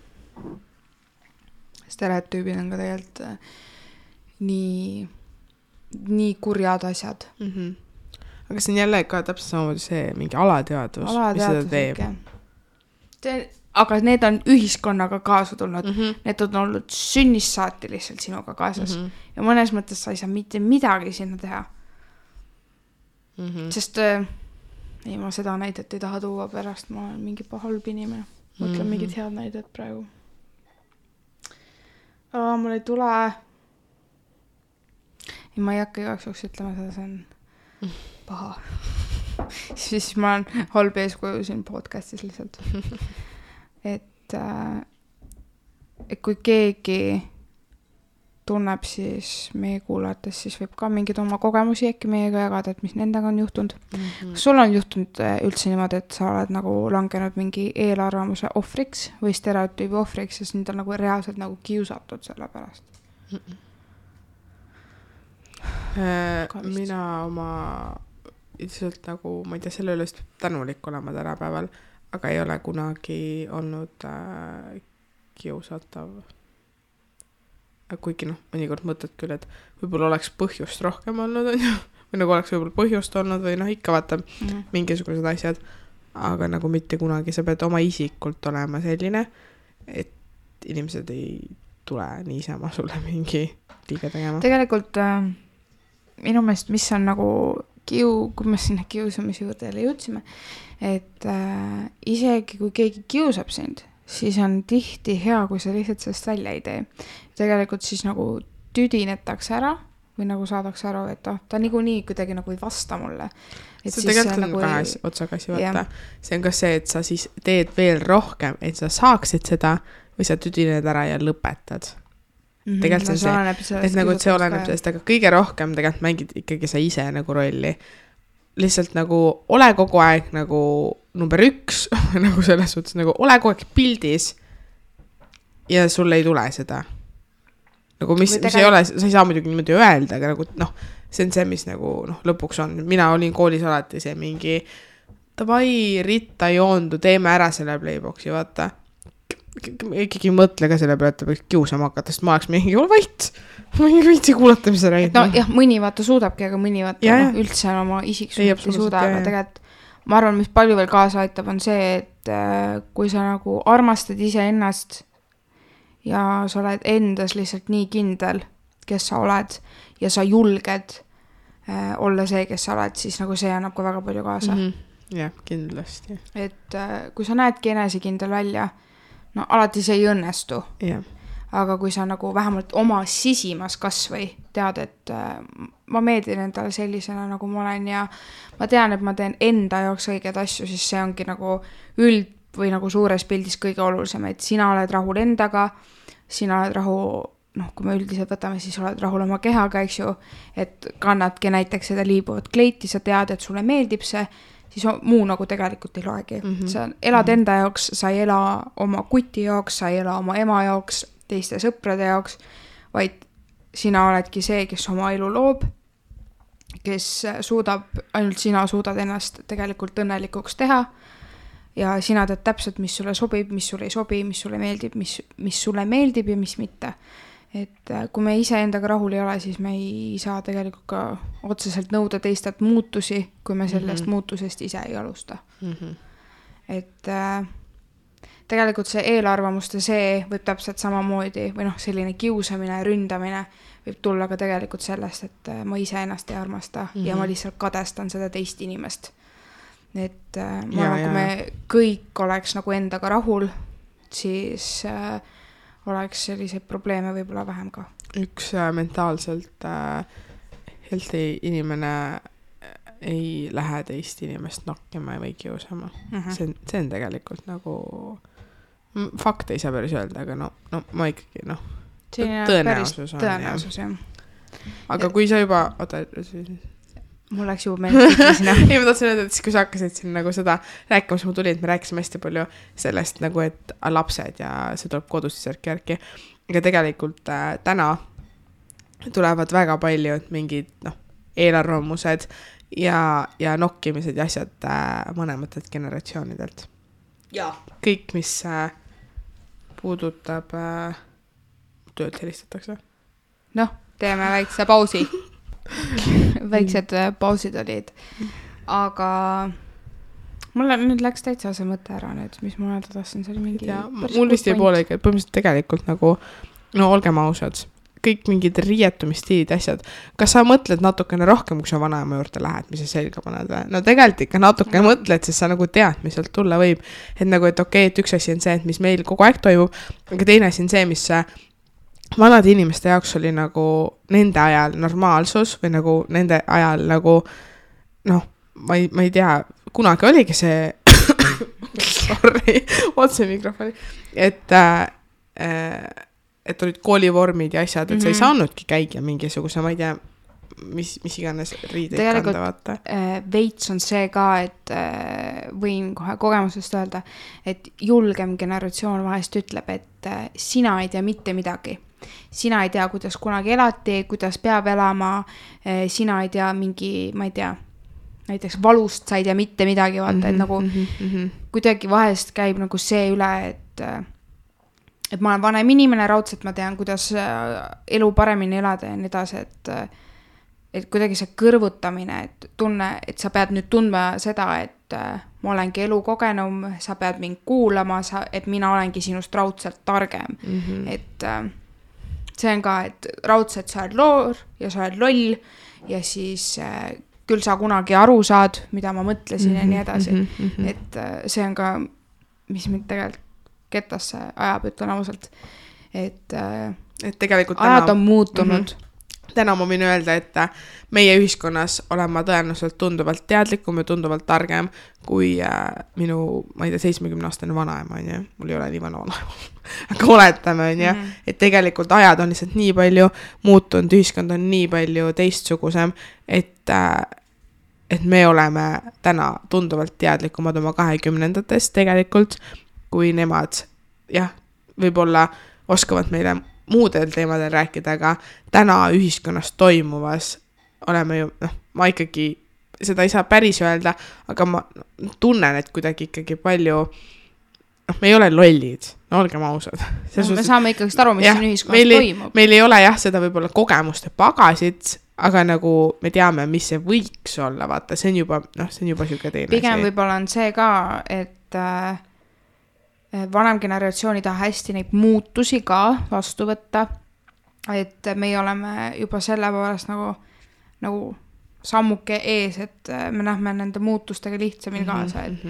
Stereotüübid on ka tegelikult nii kurjad asjad. Aga see on jälle ka täpselt samamoodi see mingi alateadvus, mis seda teeb. Aga need on ühiskonnaga kaasa tulnud. Need on olnud sünnist saati lihtsalt sinuga kaasas. Ja mõnes mõttes sa ei saa mitte midagi sinna teha. Sest ei, ma seda näidet ei taha tuua pärast, ma olen mingi halb inimene. Mõtlen mingid head näidet praegu. Mul ei tule. Ja ma ei hakka igaks juhuks ütlema seda, see on paha. Siis ma olen halb eeskuju siin podcastis lihtsalt. Et kui keegi tunneb siis meie kuulates, siis võib ka mingid oma kogemusi äkki meiega jagada, et mis nendega on juhtunud. Kas sul on juhtunud üldse niimoodi, et sa oled nagu langenud mingi eelarvamuse ohvriks või stereotüübi ohvriks, sest nüüd on nagu reaalselt nagu kiusatud selle pärast? Mina oma ilmselt nagu, ma ei tea, selle üle tänulik olema tänapäeval, aga ei ole kunagi olnud kiusatav. Kuigi mõnikord mõtled küll, et võib-olla oleks põhjust rohkem olnud, või nagu oleks võib-olla põhjust olnud, või ikka vaata mingisugused asjad, aga nagu mitte kunagi. Sa pead oma isikult olema selline, et inimesed ei tule niisama sulle mingi liiga tegema. Tegelikult minu meelest, mis on nagu kui me sinna kiusamise juurde jälle jõudsime, et isegi kui keegi kiusab sind, siis on tihti hea, kui sa lihtsalt sellest välja ei tee. Tegelikult siis nagu tüdinetakse ära või nagu saadakse aru, et ta niikuinii kuidagi nagu ei vasta mulle. See tegelikult on nagu kahe otsaga asi vaata. See on ka see, et sa siis teed veel rohkem, et sa saaksid seda või sa tüdined ära ja lõpetad. Tegelikult see on see, et nagu see oleneb sellest, aga kõige rohkem tegelikult mängid ikkagi sa ise nagu rolli. Lihtsalt nagu ole kogu aeg nagu number 1, nagu selles suhtes, nagu ole kogu aeg pildis ja sul ei tule seda. Nagu mis ei ole, sa ei saa muidugi niimoodi öelda, aga nagu see on see, mis nagu lõpuks on. Mina olin koolis alati see mingi davai, Ritta joondu, teeme ära selle Playboxi, vaata. Ikkagi mõtle ka selle peale, et ta võiks kiusama hakata, sest ma oleks mingi, ole vait, ma ei viitsi kuulata, mis sa räägid. Jah, mõni vaata suudabki, aga mõni vaata üldse oma isiksust ei suuda, aga tegelikult ma arvan, mis palju veel kaasa aitab, on see, et kui sa nagu armastad ise ennast ja sa oled endas lihtsalt nii kindel, kes sa oled ja sa julged olla see, kes sa oled, siis nagu see annab ka väga palju kaasa. jah, kindlasti. Et kui sa näedki enesekindel välja, no alati see ei õnnestu. jah. Aga kui sa nagu vähemalt oma sisimas kasvõi tead, et ma meeldin endale sellisena, nagu ma olen ja ma tean, et ma teen enda jaoks õigeid asju, siis see ongi nagu või nagu suures pildis kõige olulisem, et sina oled rahul endaga, sina oled kui me üldiselt võtame, siis oled rahul oma kehaga, eks ju, et kannadki näiteks seda liibuvat kleiti, sa tead, et sulle meeldib see, siis muu nagu tegelikult ei loegi. Sa elad enda jaoks, sa ei ela oma kuti jaoks, sa ei ela oma ema jaoks, teiste sõprade jaoks, vaid sina oledki see, kes oma elu loob, kes ainult sina suudad ennast tegelikult õnnelikuks teha ja sina tead täpselt, mis sulle sobib, mis sulle ei sobi, mis sulle meeldib, mis sulle meeldib ja mis mitte. Et kui me ise endaga rahul ei ole, siis me ei saa tegelikult ka otseselt nõuda teistelt muutusi, kui me sellest muutusest ise ei alusta. Et tegelikult see eelarvamuste võib täpselt samamoodi või selline kiusamine ja ründamine võib tulla ka tegelikult sellest, et ma ise ennast ei armasta ja ma lihtsalt kadestan seda teist inimest. Et kui me kõik oleks nagu endaga rahul, siis oleks selliseid probleeme võib-olla vähem ka. Üks mentaalselt healthy inimene ei lähe teist inimest nokkima või kiusama. See on tegelikult nagu fakt ei saa päris öelda, aga ma ikkagi tõenäosus on. Tõenäosus, jah. Aga kui sa juba mul läks juba meelest sinna. Ei, ma tahtsin öelda, et siis kui sa hakkasid siin nagu seda rääkima, siis ma tulin, et me rääkisime hästi palju sellest nagu, et lapsed ja see tuleb kodust järki. Aga tegelikult täna tulevad väga palju mingid eelarvamused ja nokkimised ja asjad vanematelt generatsioonidelt. Ja. Kõik, mis puudutab töölt helistatakse. Teeme väikse pausi. Väiksed pausid olid. Aga mulle nüüd läks täitsa see mõte ära nüüd, mis ma öelda tahtsin, see oli mingi... Mul vist ei poolegi, et põhimõtteliselt tegelikult nagu, olgem ausad, kõik mingid riietumistiilid asjad. Kas sa mõtled natukene rohkem, kui sa vanaema juurde lähed, mis sa selga paned? No tegelikult ikka natuke mõtled, sest sa nagu tead, mis sealt tulla võib. Et nagu, et okei, et üks asi on see, et mis meil kogu aeg toimub, aga teine asi on see, mis vanade inimeste jaoks oli nagu nende ajal normaalsus või nagu nende ajal nagu ma ei tea, kunagi oligi see sorry, otse mikrofoni, et olid koolivormid ja asjad, et sa ei saanudki käia mingisuguse, ma ei tea, mis iganes riideid kanda, vaata. Veits on see ka, et võin kohe kogemusest öelda, et julgem generatsioon vahest ütleb, et sina ei tea mitte midagi. Sina ei tea, kuidas kunagi elati, kuidas peab elama, sina ei tea mingi, ma ei tea, näiteks valust sa ei tea mitte midagi, vaata, et nagu kuidagi vahest käib nagu see üle, et ma olen vanem inimene, raudselt ma tean, kuidas elu paremini elada ja nii edasi, et kuidagi see kõrvutamine, et tunne, et sa pead nüüd tundma seda, et ma olengi elukogenum, sa pead mind kuulama, et mina olengi sinust raudselt targem. Et see on ka, et raudselt sa oled loor ja sa oled loll ja siis küll sa kunagi aru saad, mida ma mõtlesin ja nii edasi. Et see on ka, mis mind tegelikult ketasse ajab, ütlen ausalt. Et tegelikult ajad on muutunud. Täna ma võin öelda, et meie ühiskonnas olen ma tõenäoliselt tunduvalt teadlikum ja tunduvalt targem kui minu, ma ei tea, 70-aastane vanaema, on ju. Mul ei ole nii vanaema. Aga oletame, on ju. Et tegelikult ajad on lihtsalt nii palju muutunud, ühiskond on nii palju teistsugusem, et me oleme täna tunduvalt teadlikumad oma 20-ndatest tegelikult, kui nemad, jah, võib-olla oskavad meile muudel teemadel rääkida, aga täna ühiskonnas toimuvas oleme ju, ma ikkagi seda ei saa päris öelda, aga ma tunnen, et kuidagi ikkagi palju, me ei ole lollid, olgem ausad. Me saame ikkagi aru, mis siin ühiskonnas toimub. Meil ei ole jah seda võib-olla kogemuste pagasid, aga nagu me teame, mis see võiks olla, vaata, see on juba siuke teine. Pigem võib-olla on see ka, et vanem generatsioon ei taha hästi neid muutusi ka vastu võtta, et meie oleme juba selle poolest nagu sammuke ees, et me näeme nende muutustega lihtsamini kaasa, et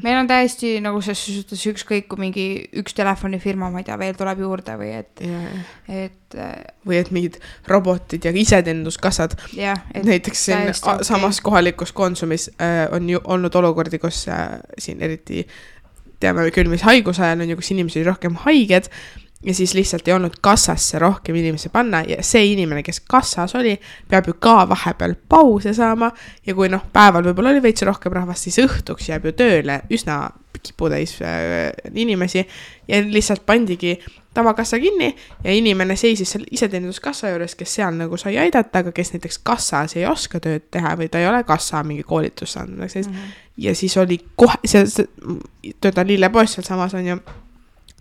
meil on täiesti nagu selles suhtes ükskõik, kui mingi üks telefonifirma, ma ei tea, veel tuleb juurde või et või et mingid robotid ja iseteeninduskassad. Näiteks siin samas kohalikus Konsumis on ju olnud olukordi, kus siin eriti teame küll, mis haiguse ajal on ju, kus inimesi oli rohkem haiged ja siis lihtsalt ei olnud kassasse rohkem inimesi panna ja see inimene, kes kassas oli, peab ju ka vahepeal pause saama ja kui päeval võib-olla oli veits rohkem rahvast, siis õhtuks jääb ju tööle üsna kiputäis inimesi ja lihtsalt pandigi tavakassa kinni ja inimene seisis seal iseteeninduskassa juures, kes seal nagu sai aidata, aga kes näiteks kassas ei oska tööd teha või ta ei ole kassa mingi koolitus saanud. Ja siis oli kohe, töötan lillepoes seal samas on ju,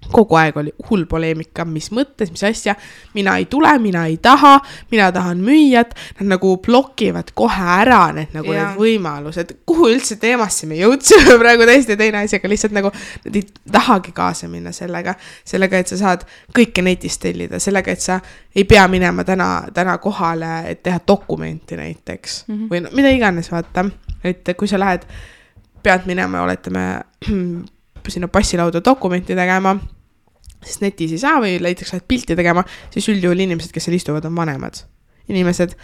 kogu aeg oli hull poleemika, mis mõttes, mis asja, mina ei tule, mina ei taha, mina tahan müüjat, nad nagu blokivad kohe ära need võimalused, kuhu üldse teemasse me jõudsime praegu täiesti teine asi, aga lihtsalt nagu nad ei tahagi kaasa minna sellega, et sa saad kõike netist tellida, sellega, et sa ei pea minema täna kohale, et teha dokumenti näiteks või mida iganes vaata, et kui sa pead minema, oletame sinna passilauda dokumenti tegema, sest netis ei saa või näiteks lähed pilti tegema, siis üldjuhul inimesed, kes seal istuvad, on vanemad. Inimesed,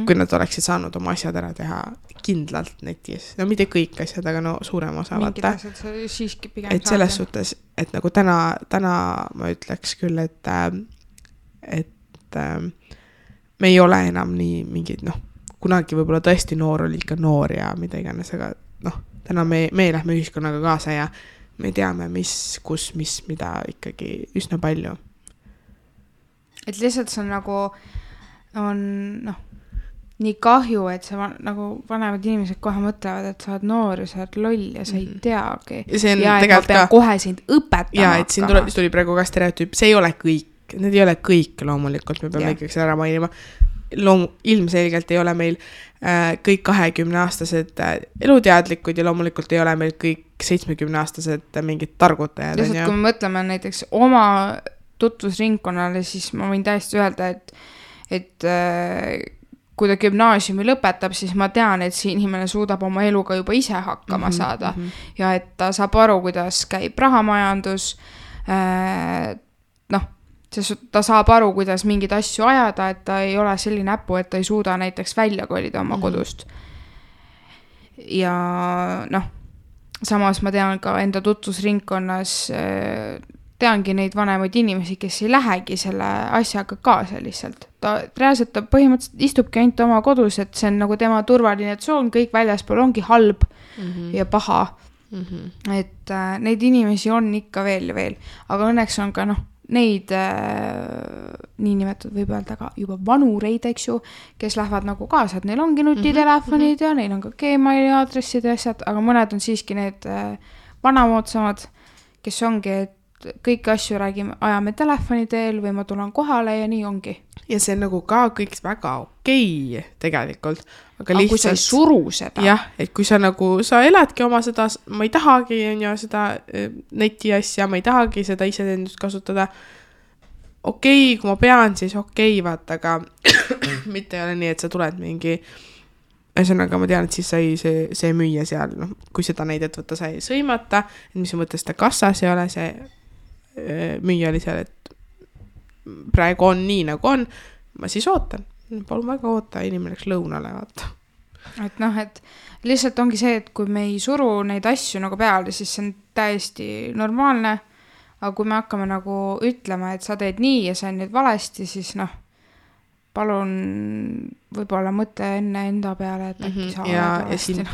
kui nad oleksid saanud oma asjad ära teha kindlalt netis. No mitte kõik asjad, aga suurem osa. Mingid asjad siiski pigem et selles suhtes, et nagu täna ma ütleks küll, et me ei ole enam nii mingid, kunagi võib-olla tõesti noor oli ikka noor ja mida iganes, aga täna me lähme ühiskonnaga kaasa ja me teame, kus, mida ikkagi üsna palju. Et lihtsalt see on nagu, nii kahju, et see nagu vanemad inimesed kohe mõtlevad, et sa oled noor ja sa oled loll ja sa ei teagi. Ja et ma pean kohe sind õpetama. Ja, et siin tuli praegu ka stereotüüp, see ei ole kõik, need ei ole kõik loomulikult, me peame ikkagi ära mainima. Ilmselgelt ei ole meil kõik 20-aastased eluteadlikud ja loomulikult ei ole meil kõik 70-aastased mingid targutajad. Lihtsalt kui me mõtleme näiteks oma tutvusringkonnale, siis ma võin täiesti öelda, et kui ta gümnaasiumi lõpetab, siis ma tean, et see inimene suudab oma eluga juba ise hakkama saada ja et ta saab aru, kuidas käib rahamajandus, ta saab aru, kuidas mingid asju ajada, et ta ei ole selline äppu, et ta ei suuda näiteks välja kolida oma kodust. Ja samas ma tean ka enda tutvusringkonnas, teangi neid vanemaid inimesi, kes ei lähegi selle asjaga kaasa lihtsalt. Ta põhimõtteliselt istubki ainult oma kodus, et see on nagu tema turvaline tsoon, kõik väljaspool ongi halb ja paha. Et neid inimesi on ikka veel ja veel, aga õnneks on ka neid niinimetatud võib öelda ka juba vanureid, eks ju, kes lähevad nagu kaasa, et neil ongi nutitelefonid ja neil on ka Gmaili aadressid ja asjad, aga mõned on siiski need vanamoodsamad, kes ongi, et kõiki asju ajame telefoni teel või ma tulen kohale ja nii ongi. Ja see on nagu ka kõik väga okei tegelikult. Aga kui sa ei suru seda. Jah, et kui sa eladki oma seda, ma ei tahagi seda neti asja, ma ei tahagi seda iseteenindust kasutada. Okei, kui ma pean, siis okei, vaata, aga mitte ei ole nii, et sa tuled mingi, ühesõnaga ma tean, et siis sai see müüja seal, kui seda näidet võtta, sai sõimata, et mis mõttes ta kassas ei ole, see müüja oli seal, et praegu on nii nagu on, ma siis ootan. Palun väga oota, inimene läks lõunale, vaata. Et et lihtsalt ongi see, et kui me ei suru neid asju nagu peale, siis see on täiesti normaalne, aga kui me hakkame nagu ütlema, et sa teed nii ja sa on nüüd valesti, siis palun võib-olla mõtle enne enda peale, et äkki sa oled valesti. Ja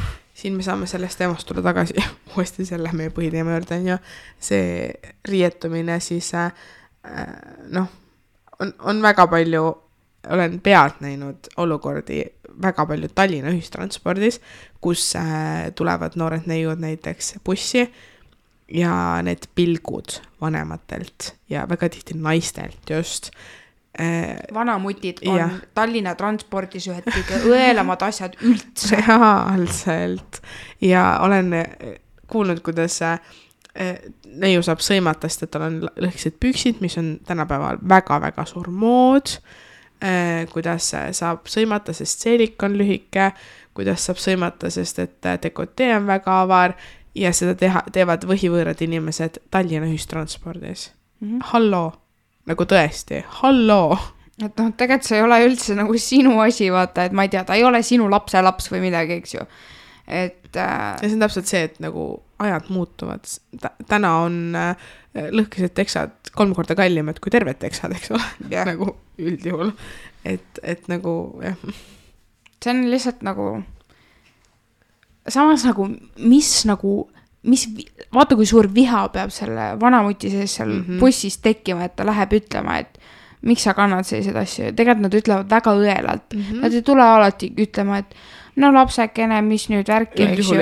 siin me saame sellest teemast tulla tagasi uuesti selle meie põhiteema juurde, ja see rietumine siis on väga palju, olen pealt näinud olukordi väga palju Tallinna ühistranspordis, kus tulevad noored neiud näiteks bussi ja need pilgud vanematelt ja väga tihti naistelt just. Vanamutid on Tallinna transpordis ühed kõige õelamad asjad üldse. Reaalselt. Ja olen kuulnud, kuidas neiu saab sõimata, sest et tal on lõhkised püksid, mis on tänapäeval väga-väga suur mood. kuidas saab sõimata, sest seelik on lühike, kuidas saab sõimata, sest et dekotee on väga avar ja seda teevad võhivõõrad inimesed Tallinna ühistranspordis. Halloo, nagu tõesti, halloo. Et noh, tegelikult see ei ole üldse nagu sinu asi, vaata, et ma ei tea, ta ei ole sinu lapselaps või midagi, eks ju. Et ja see on täpselt see, et nagu ajad muutuvad. Täna on lõhkised teksad 3 korda kallimad kui terved teksad, eks ole, nagu üldjuhul. Et nagu, jah. See on lihtsalt nagu, samas nagu, vaata kui suur viha peab selle vanamuti sees seal bussis tekkima, et ta läheb ütlema, et miks sa kannad sellised asju. Tegelikult nad ütlevad väga õelalt. Nad ei tule alati ütlema, et no lapsekene, mis nüüd värki, eks ju.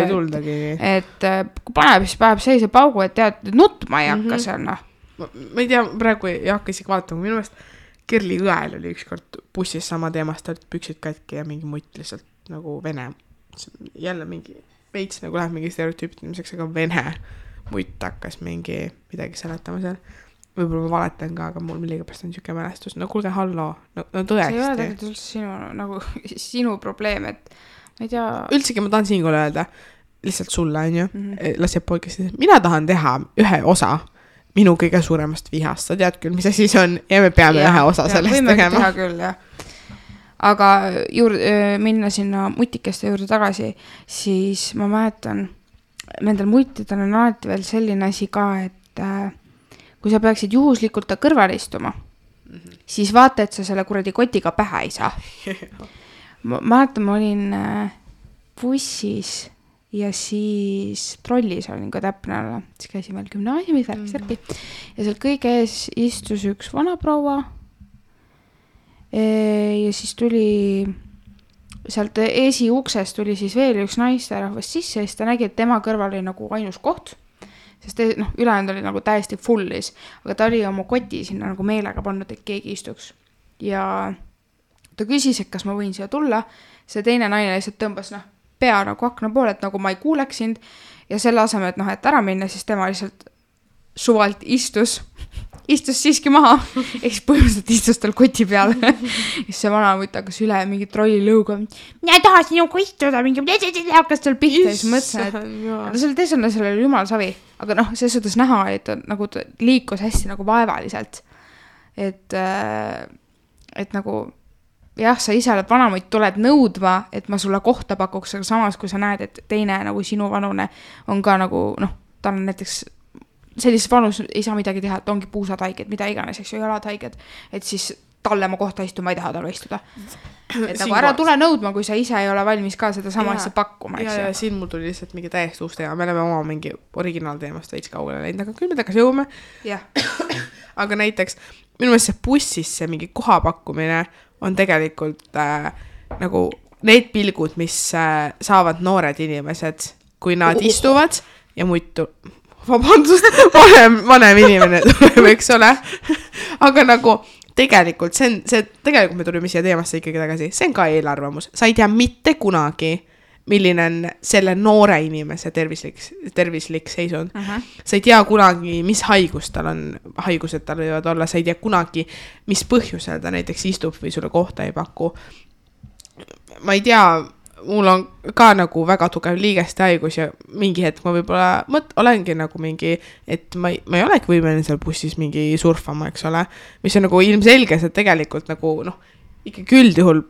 Et kui paneb, siis paneb sellise paugu, et tead, nutma ei hakka seal, noh. Ma ei tea, praegu ei hakka isegi vaatama. Minu meelest Kerli õel oli ükskord bussis sama teemast, olid püksid katki ja mingi mutt lihtsalt nagu vene. Jälle mingi veits nagu läheb mingi stereotüüptimiseks, aga vene mutt hakkas midagi seletama seal. Võib-olla ma valetan ka, aga mul milligapärast on niisugune mälestus. No kuulge, halloo, no tõesti. See ei ole tegelikult üldse sinu probleem, et ma ei tea. Üldsegi ma tahan siinkohal öelda, lihtsalt sulle, on ju, lasjab podcast'is. Mina tahan teha ühe osa minu kõige suuremast vihast. Sa tead küll, mis asi see on ja me peame ühe osa sellest tegema. Võime teha küll, jah. Aga minna sinna mutikeste juurde tagasi, siis ma mäletan, nendel mutidel on alati veel selline asi ka, et kui sa peaksid juhuslikult ta kõrval istuma, siis vaata, et sa selle kuradi kotiga pähe ei saa. Ma mäletan, ma olin bussis ja siis trollis olin ka täpne olla. Siis käisin veel gümnaasiumis värk-särki ja seal kõige ees istus üks vanaproua ja siis tuli sealt esiuksest tuli siis veel üks naisterahvas sisse ja siis ta nägi, et tema kõrval oli nagu ainus koht, sest ülejäänud oli nagu täiesti fullis, aga ta oli oma koti sinna nagu meelega pannud, et keegi istuks. Ja ta küsis, et kas ma võin siia tulla, see teine naine lihtsalt tõmbas pea nagu akna poole, et nagu ma ei kuuleks sind ja selle aseme, et et ära minna, siis tema lihtsalt suvalt istus siiski maha, eks põhimõtteliselt istus tal koti peal. Ja see vana mutt hakkas üle mingi trolli lõuga, mina ei taha sinuga istuda, mingi hakkas tal pihta ja siis mõtlesin, et selle teisele selle oli jumal savi, aga see suhtes näha, et nagu ta liikus hästi nagu vaevaliselt, et nagu jah, sa ise oled vanamutt, tuled nõudma, et ma sulle kohta pakuks, aga samas kui sa näed, et teine nagu sinu vanune on ka nagu ta on näiteks sellises vanus ei saa midagi teha, et ongi puusad haiged, mida iganes, eks ju, jalad haiged, et siis talle ma kohta istuma ei taha talle istuda. Et nagu ära tule nõudma, kui sa ise ei ole valmis ka seda sama asja pakkuma, eks ju. Ja siin mul tuli lihtsalt mingi täiesti uus teema, me oleme oma mingi originaalteemast veits kaugele läinud, aga küll me tagasi jõuame. Aga näiteks minu meelest see bussis see mingi kohapakkumine on tegelikult nagu need pilgud, mis saavad noored inimesed, kui nad istuvad ja muidu vabandust, vanem inimene tuleb, eks ole. Aga nagu tegelikult tegelikult me tulime siia teemasse ikkagi tagasi, see on ka eelarvamus. Sa ei tea mitte kunagi, milline on selle noore inimese tervislik seisund. Sa ei tea kunagi, mis haigused tal võivad olla, sa ei tea kunagi, mis põhjusel ta näiteks istub või sulle kohta ei paku. Ma ei tea, mul on ka nagu väga tugev liigeste haigus ja mingi hetk ma võib-olla olengi nagu mingi, et ma ei olegi võimeline seal bussis mingi surfama, eks ole, mis on nagu ilmselge, see tegelikult nagu ikkagi üldjuhul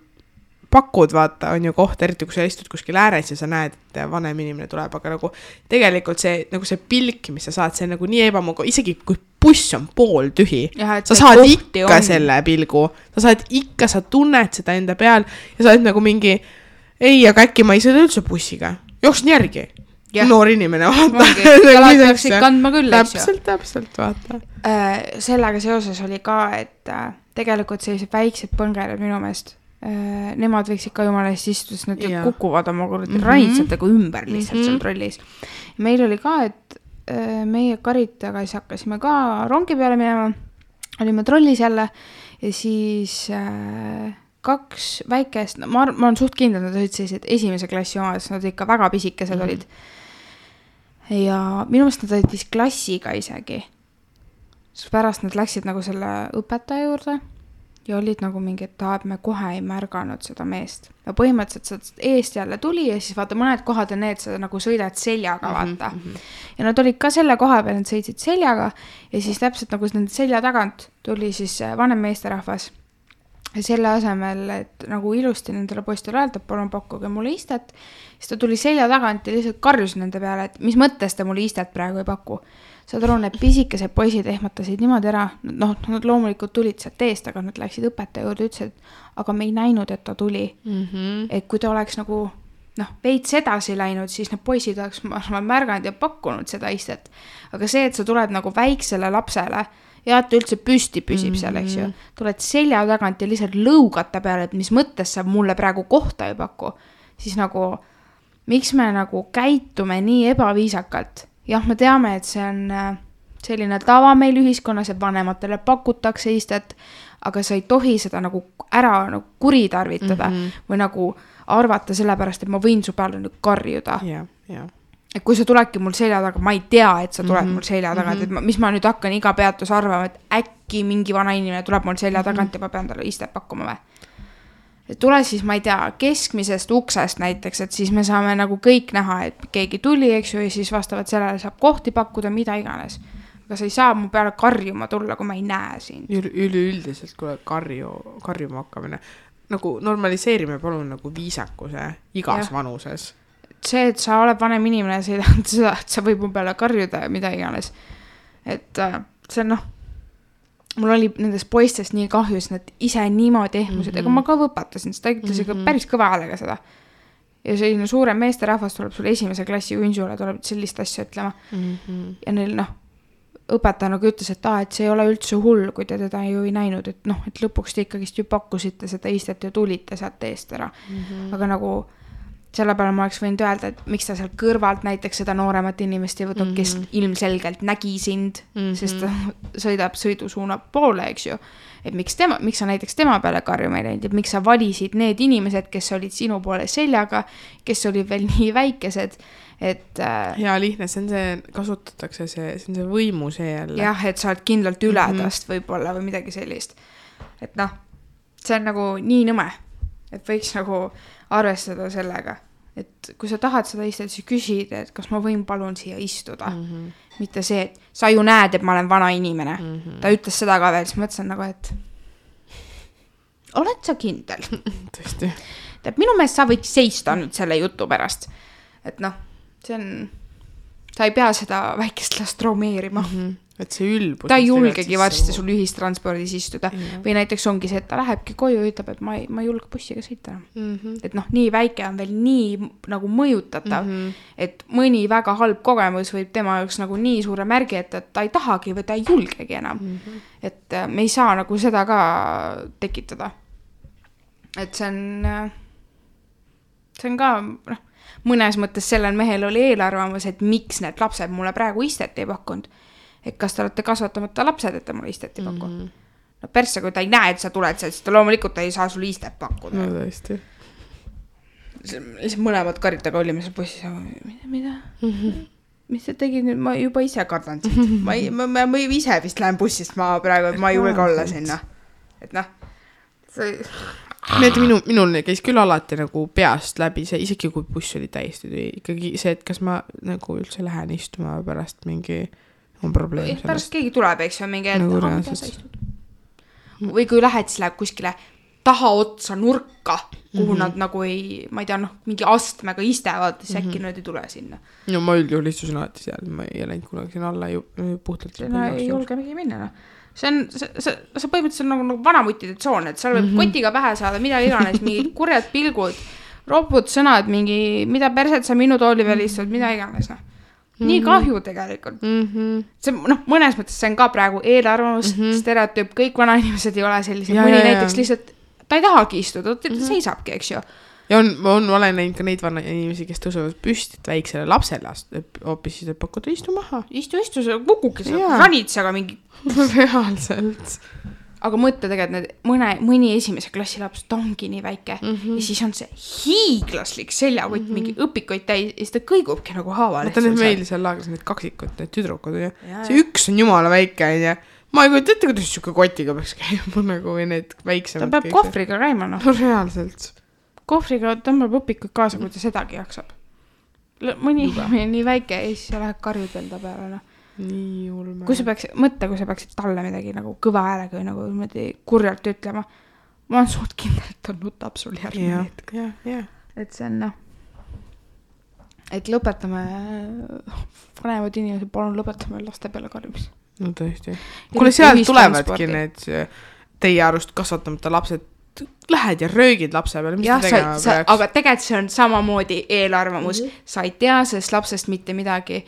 pakud, vaata, on ju koht, eriti kui sa istud kuskil ääres ja sa näed, et vanem inimene tuleb, aga nagu tegelikult see pilk, mis sa saad, see on nagu nii ebamugav, isegi kui buss on pool tühi, sa saad ikka selle pilgu, sa tunned seda enda peal ja sa oled nagu mingi ei, aga äkki ma ei sõida üldse bussiga. Jooksin järgi. Noor inimene, vaata. Jalad peaksid kandma küll, eks ju. Täpselt, vaata. Sellega seoses oli ka, et tegelikult sellised väiksed põngered minu meelest, nemad võiksid ka jumala eest istuda, sest nad kukuvad oma ranitsatega ümber lihtsalt seal trollis. Meil oli ka, et meie karitaga siis hakkasime ka rongi peale minema, olime trollis jälle ja siis 2 väikest, ma olen suht kindel, nad olid sellised esimese klassi omad, nad ikka väga pisikesed olid. Ja minu meelest nad olid vist klassiga isegi. Siis pärast nad läksid nagu selle õpetaja juurde ja olid nagu mingi, et me kohe ei märganud seda meest. Ja põhimõtteliselt seda eest jälle tuli ja siis vaata mõned kohad on need, sa nagu sõidad seljaga, vaata. Ja nad olid ka selle koha peal, nad sõitsid seljaga ja siis täpselt nagu nende selja tagant tuli siis vanem meesterahvas. Ja selle asemel, et nagu ilusti nendele poistele öelda, palun pakkuge mulle istet, siis ta tuli selja tagant ja lihtsalt karjus nende peale, et mis mõttes te mulle istet praegu ei paku. Saad aru, need pisikesed poisid ehmatasid niimoodi ära, noh, nad loomulikult tulid sealt eest, aga nad läksid õpetaja juurde ja ütlesid, aga me ei näinud, et ta tuli. Et kui ta oleks nagu, noh, veits edasi läinud, siis need poisid oleks märganud ja pakkunud seda istet. Aga see, et sa tuled nagu väiksele lapsele, ja et ta üldse püsti püsib seal, eks ju. Tuled selja tagant ja lihtsalt lõugata peale, et mis mõttes sa mulle praegu kohta ei paku. Siis nagu, miks me nagu käitume nii ebaviisakalt? Jah, me teame, et see on selline tava meil ühiskonnas, et vanematele pakutakse istet, aga sa ei tohi seda nagu ära nagu kuritarvitada või nagu arvata sellepärast, et ma võin su peale nüüd karjuda. Et kui sa tuledki mul selja taga, ma ei tea, et sa tuled mul selja tagant, et mis ma nüüd hakkan iga peatus arvama, et äkki mingi vana inimene tuleb mul selja tagant ja ma pean talle istet pakkuma või. Et tule siis, ma ei tea, keskmisest uksest näiteks, et siis me saame nagu kõik näha, et keegi tuli, eks ju, ja siis vastavalt sellele saab kohti pakkuda, mida iganes. Aga sa ei saa mu peale karjuma tulla, kui ma ei näe siin. Üleüldiselt, kui karjuma hakkamine, nagu normaliseerime palun nagu viisakuse igas vanuses. See, et sa oled vanem inimene, see ei tähenda seda, et sa võib mu peale karjuda ja mida iganes. Et see on noh, mul oli nendest poistest nii kahju, sest nad ise niimoodi ehmusid, ega ma ka võpatasin, sest ta ütles ikka päris kõva häälega seda. Ja selline suurem meesterahvas tuleb sulle esimese klassi ünsule, tuleb sellist asja ütlema. Ja neil noh, õpetaja nagu ütles, et see ei ole üldse hull, kui te teda ju ei näinud, et noh, et lõpuks te ikkagist ju pakkusite seda istet ja tulite sealt eest ära. Aga nagu selle peale ma oleks võinud öelda, et miks ta seal kõrvalt näiteks seda nooremat inimest ei võtnud, kes ilmselgelt nägi sind, sest ta sõidab sõidusuuna poole, eks ju. Et miks sa näiteks tema peale karjuma ei läinud, et miks sa valisid need inimesed, kes olid sinu poole seljaga, kes olid veel nii väikesed, et ja lihtne, kasutatakse see on see võimu see jälle. Jah, et sa oled kindlalt ületast võib-olla või midagi sellist. Et noh, see on nagu nii nõme, et võiks nagu arvestada sellega, et kui sa tahad seda istet, siis küsid, et kas ma võin palun siia istuda. Mitte see, et sa ju näed, et ma olen vana inimene. Ta ütles seda ka veel, siis mõtlesin nagu, et oled sa kindel? Tõesti. Tead, minu meelest sa võid seista nüüd selle jutu pärast. Et noh, see on, sa ei pea seda väikest last traumeerima. Et see ülbus. Ta ei julgegi varsti sul ühistranspordis istuda. Või näiteks ongi see, et ta lähebki koju ja ütleb, et ma ei julge bussiga sõita. Et noh, nii väike on veel nii nagu mõjutatav, et mõni väga halb kogemus võib tema jaoks nagu nii suure märgi, et ta ei tahagi või ta ei julgegi enam. Et me ei saa nagu seda ka tekitada. Et see on ka, mõnes mõttes sellel mehel oli eelarvamus, et miks need lapsed mulle praegu istet ei pakkunud. Et kas te olete kasvatamata lapsed, et te mulle istet ei pakku. No persse, kui ta ei näe, et sa tuled sealt, siis ta loomulikult ei saa sulle istet pakkuda. No tõesti. Lihtsalt mõlemad karitaga olime seal bussis. Mida? Mis sa tegid nüüd? Ma juba ise kardan siit. Ma ise vist lähen bussist maa praegu, et ma ei julge olla sinna. Et noh, minul käis küll alati nagu peast läbi see, isegi kui buss oli täiesti ikkagi see, et kas ma nagu üldse lähen istuma pärast mingi on probleem sellest. Pärast keegi tuleb, eks ju, mingi või kui lähed, siis läheb kuskile taha otsa nurka, kuhu nad nagu ei, ma ei tea, noh, mingi astmega istevad, siis äkki nad ei tule sinna. No ma üldjuhul istusin alati seal, ma ei läinud kunagi sinna alla puhtalt. Ei julge mingi minna, noh. See põhimõtteliselt nagu vanamutide tsoon, et seal võib kotiga pähe saada, mida iganes, mingid kurjad pilgud, ropud sõnad, mingi, mida perset sa minu tooli veel istud, mida iganes, noh. Nii kahju tegelikult. See, noh, mõnes mõttes see on ka praegu eelarvamus, stereotüüp, kõik vanainimesed ei ole sellised, mõni näiteks lihtsalt, ta ei tahagi istuda, ta seisabki, eks ju. Ja olen näinud ka neid vanainimesi, kes tõusevad püstit väiksele lapsele, hoopis siis pakkuda istu maha. Istu, sa kukuki seal ranitsaga mingi. Reaalselt. Aga mõtle tegelikult mõni esimese klassi laps, ta ongi nii väike ja siis on see hiiglaslik seljakott, mingi õpikott täis ja siis ta kõigubki nagu haava. Vaata need meil seal laagris need kaksikud, need tüdrukud. See üks on jumala väike ja ma ei kujuta ette, kuidas siuke kotiga peaks käima nagu või need väiksemad. ta peab kohvriga käima, noh. No reaalselt. Kohvriga tõmbab õpikud kaasa, kui ta sedagi jaksab. Mõni nii väike ja siis läheb karjud veel ta peale, noh. Nii ulme. Kui sa peaksid talle midagi nagu kõva häälega või nagu kurjalt ütlema, ma olen suht kindel, et ta nutab sul järgmine hetk. Et see on, noh, et lõpetame, vanemad inimesed, palun lõpetame laste peale karjumis. No tõesti. Kuule, seal tulevadki need teie arust kasvatamata lapsed, lähed ja röögid lapse peale, mis ta tegema peaks? Aga tegelikult see on samamoodi eelarvamus. Sa ei tea sellest lapsest mitte midagi.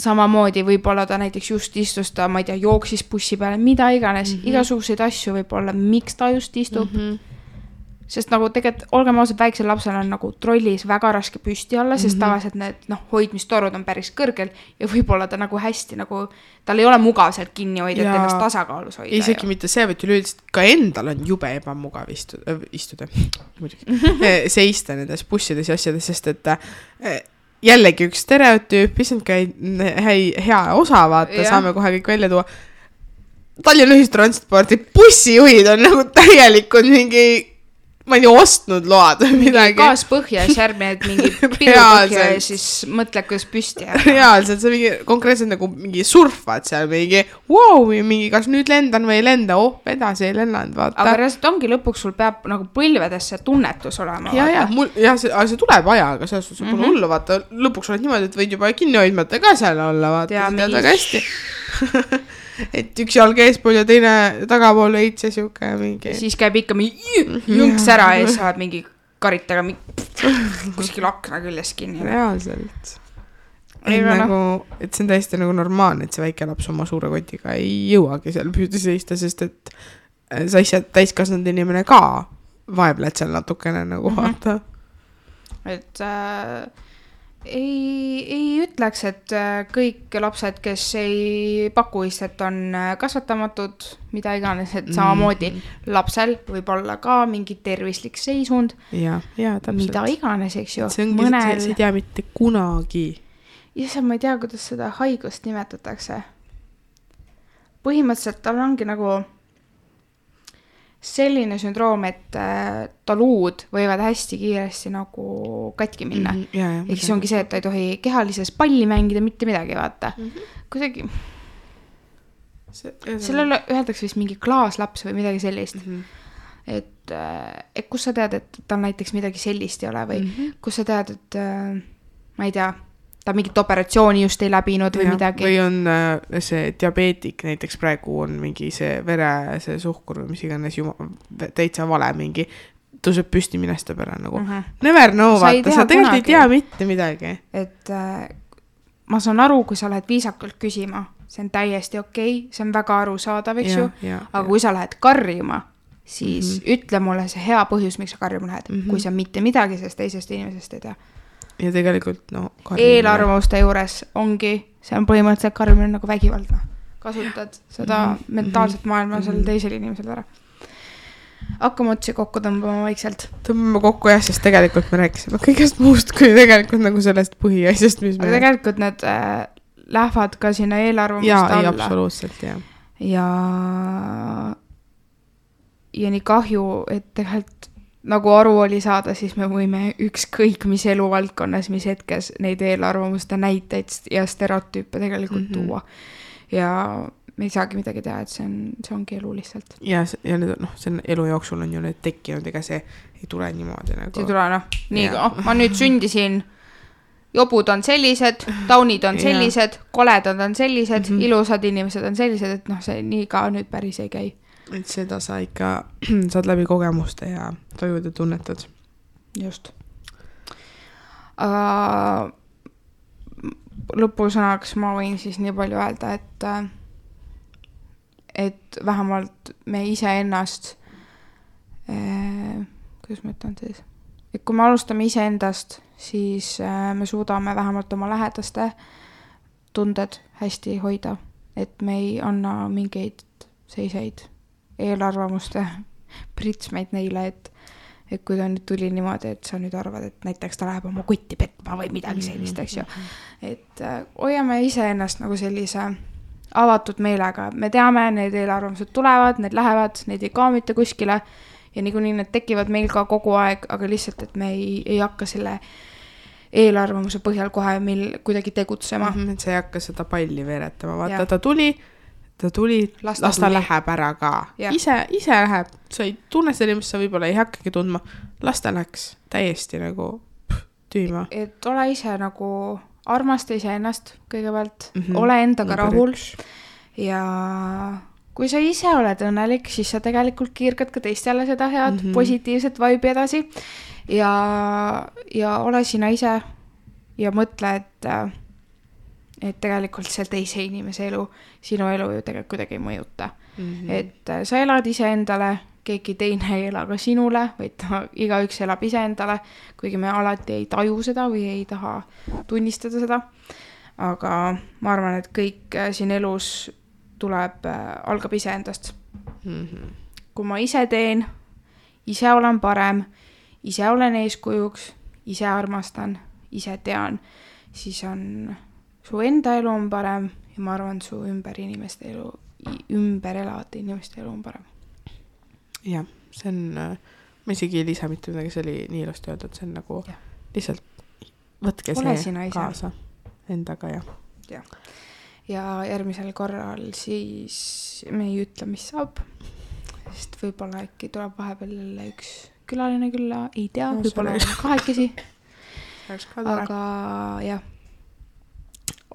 Samamoodi võib-olla ta näiteks just istus ta, ma ei tea, jooksis bussi peale, mida iganes, igasuguseid asju võib-olla, miks ta just istub. Sest nagu tegelikult, olgem ausad, väiksel lapsel on nagu trollis väga raske püsti olla, sest tavaliselt need hoidmistorud on päris kõrgel ja võib-olla ta nagu hästi nagu, tal ei ole mugav sealt kinni hoida, et ennast tasakaalus hoida. Isegi mitte see, vaid üleüldiselt ka endal on jube ebamugav istuda seista nendes bussides ja asjades, sest et jällegi üks stereotüüp, isn't ka hea osa vaata, saame kohe kõik välja tuua. Tallinna ühistranspordi bussijuhid on nagu täielikult mingi ma ei ostnud load või midagi. Gaas põhja ja järgmine, et mingi pidu põhja ja siis mõtle, kuidas püsti jääb. Reaalselt, see mingi konkreetselt nagu mingi surfad seal mingi, wow, mingi kas nüüd lendan või ei lenda, edasi ei lennanud, vaata. Aga reaalselt ongi lõpuks sul peab nagu põlvedesse tunnetus olema. See tuleb ajaga, selles sul pole hullu, vaata, lõpuks oled niimoodi, et võid juba kinni hoidmata ka seal olla, vaata, see tead väga hästi. Et üks jalg eespool ja teine tagapool veits ja siuke mingi. Siis käib ikka mingi jõnks ära ja saad mingi karitaga kuskil akna küljes kinni. Reaalselt. Et see on täiesti nagu normaalne, et see väike laps oma suure kotiga ei jõuagi seal püüdi seista, sest et sa ise täiskasvanud inimene ka vaebled seal natukene nagu vaata. Et ei ütleks, et kõik lapsed, kes ei paku istet, on kasvatamatud, mida iganes, et samamoodi lapsel võib olla ka mingi tervislik seisund, mida iganes, eks ju. See ei tea mitte kunagi. Ja ma ei tea, kuidas seda haigust nimetatakse. Põhimõtteliselt tal ongi nagu selline sündroom, et taluud võivad hästi kiiresti nagu katki minna. Ehk siis ongi see, et ta ei tohi kehalises palli mängida, mitte midagi, vaata. Kuidagi sellele öeldakse vist mingi klaaslaps või midagi sellist. Et kus sa tead, et tal näiteks midagi sellist ei ole või kus sa tead, et ma ei tea, ta mingit operatsiooni just ei läbinud või midagi. Või on see diabeetik, näiteks praegu on mingi see vere, see suhkur või mis iganes täitsa vale mingi, tõuseb püsti minesta peale nagu. Never know, vaata, sa tegelikult ei tea mitte midagi. Et ma saan aru, kui sa lähed viisakalt küsima, see on täiesti okei, see on väga arusaadav, eks ju, aga kui sa lähed karjuma, siis ütle mulle see hea põhjus, miks sa karjuma lähed, kui sa mitte midagi sellest teisest inimesest ei tea. Ja tegelikult, eelarvamuste juures ongi, see on põhimõtteliselt karjumine nagu vägivaldne. Kasutad seda mentaalset maailma selle teisel inimesel ära. Hakkame otsi kokku tõmbama vaikselt. Tõmbame kokku jah, sest tegelikult me rääkisime kõigest muust, kui tegelikult nagu sellest põhiasjast, mis aga tegelikult need lähevad ka sinna eelarvamuste alla. Ja absoluutselt, ja nii kahju, et tegelikult nagu aru oli saada, siis me võime ükskõik mis eluvaldkonnas, mis hetkes neid eelarvamuste näiteid ja stereotüüpe tegelikult tuua. Ja me ei saagi midagi teha, et see ongi elu lihtsalt. Ja see elu jooksul on ju need tekkinud, ega see ei tule niimoodi nagu. See ei tule, ma nüüd sündisin, jobud on sellised, taunid on sellised, koledad on sellised, ilusad inimesed on sellised, et see nii ka nüüd päris ei käi. Et seda sa ikka saad läbi kogemuste ja tajud ja tunnetad. Just. Lõpusõnaks ma võin siis nii palju öelda, et vähemalt me ise ennast, kuidas ma ütlen siis, et kui me alustame ise endast, siis me suudame vähemalt oma lähedaste tunded hästi hoida, et me ei anna mingeid seiseid eelarvamuste pritsmeid neile, et kui ta nüüd tuli niimoodi, et sa nüüd arvad, et näiteks ta läheb oma kotti petma või midagi sellist, eks ju. Et hoiame ise ennast nagu sellise avatud meelega, me teame, need eelarvamused tulevad, need lähevad, need ei kaamita kuskile ja niikuinii need tekivad meil ka kogu aeg, aga lihtsalt, et me ei hakka selle eelarvamuse põhjal kohe meil kuidagi tegutsema. Et sa ei hakka seda palli veeretama, vaata, ta tuli, las ta läheb ära ka. Ise läheb, sa ei tunne seda inimest, sa võib-olla ei hakkagi tundma, las ta läks täiesti nagu tüüma. Et ole ise nagu armasta ise ennast kõigepealt, ole endaga rahul ja kui sa ise oled õnnelik, siis sa tegelikult kiirgad ka teistele seda head positiivset vibe'i edasi ja ole sina ise ja mõtle, et tegelikult see teise inimese elu, sinu elu ju tegelikult kuidagi ei mõjuta. Et sa elad ise endale, keegi teine ei ela ka sinule, vaid igaüks elab ise endale, kuigi me alati ei taju seda või ei taha tunnistada seda. Aga ma arvan, et kõik siin elus algab ise endast. Kui ma ise teen, ise olen parem, ise olen eeskujuks, ise armastan, ise tean, siis on su enda elu on parem ja ma arvan, su ümber elavate inimeste elu on parem. Jah, see on, ma isegi ei lisa mitte midagi, see oli nii ilusti öeldud, see on nagu lihtsalt võtke see kaasa endaga ja järgmisel korral siis me ei ütle, mis saab, sest võib-olla äkki tuleb vahepeal jälle üks külaline külla, ei tea, võib-olla kahekesi, aga jah,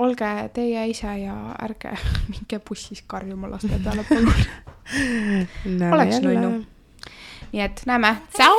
olge teie ise ja ärge minge bussis karjuma laste peale palun. Oleks nunnu. Nii et näeme. Tšau!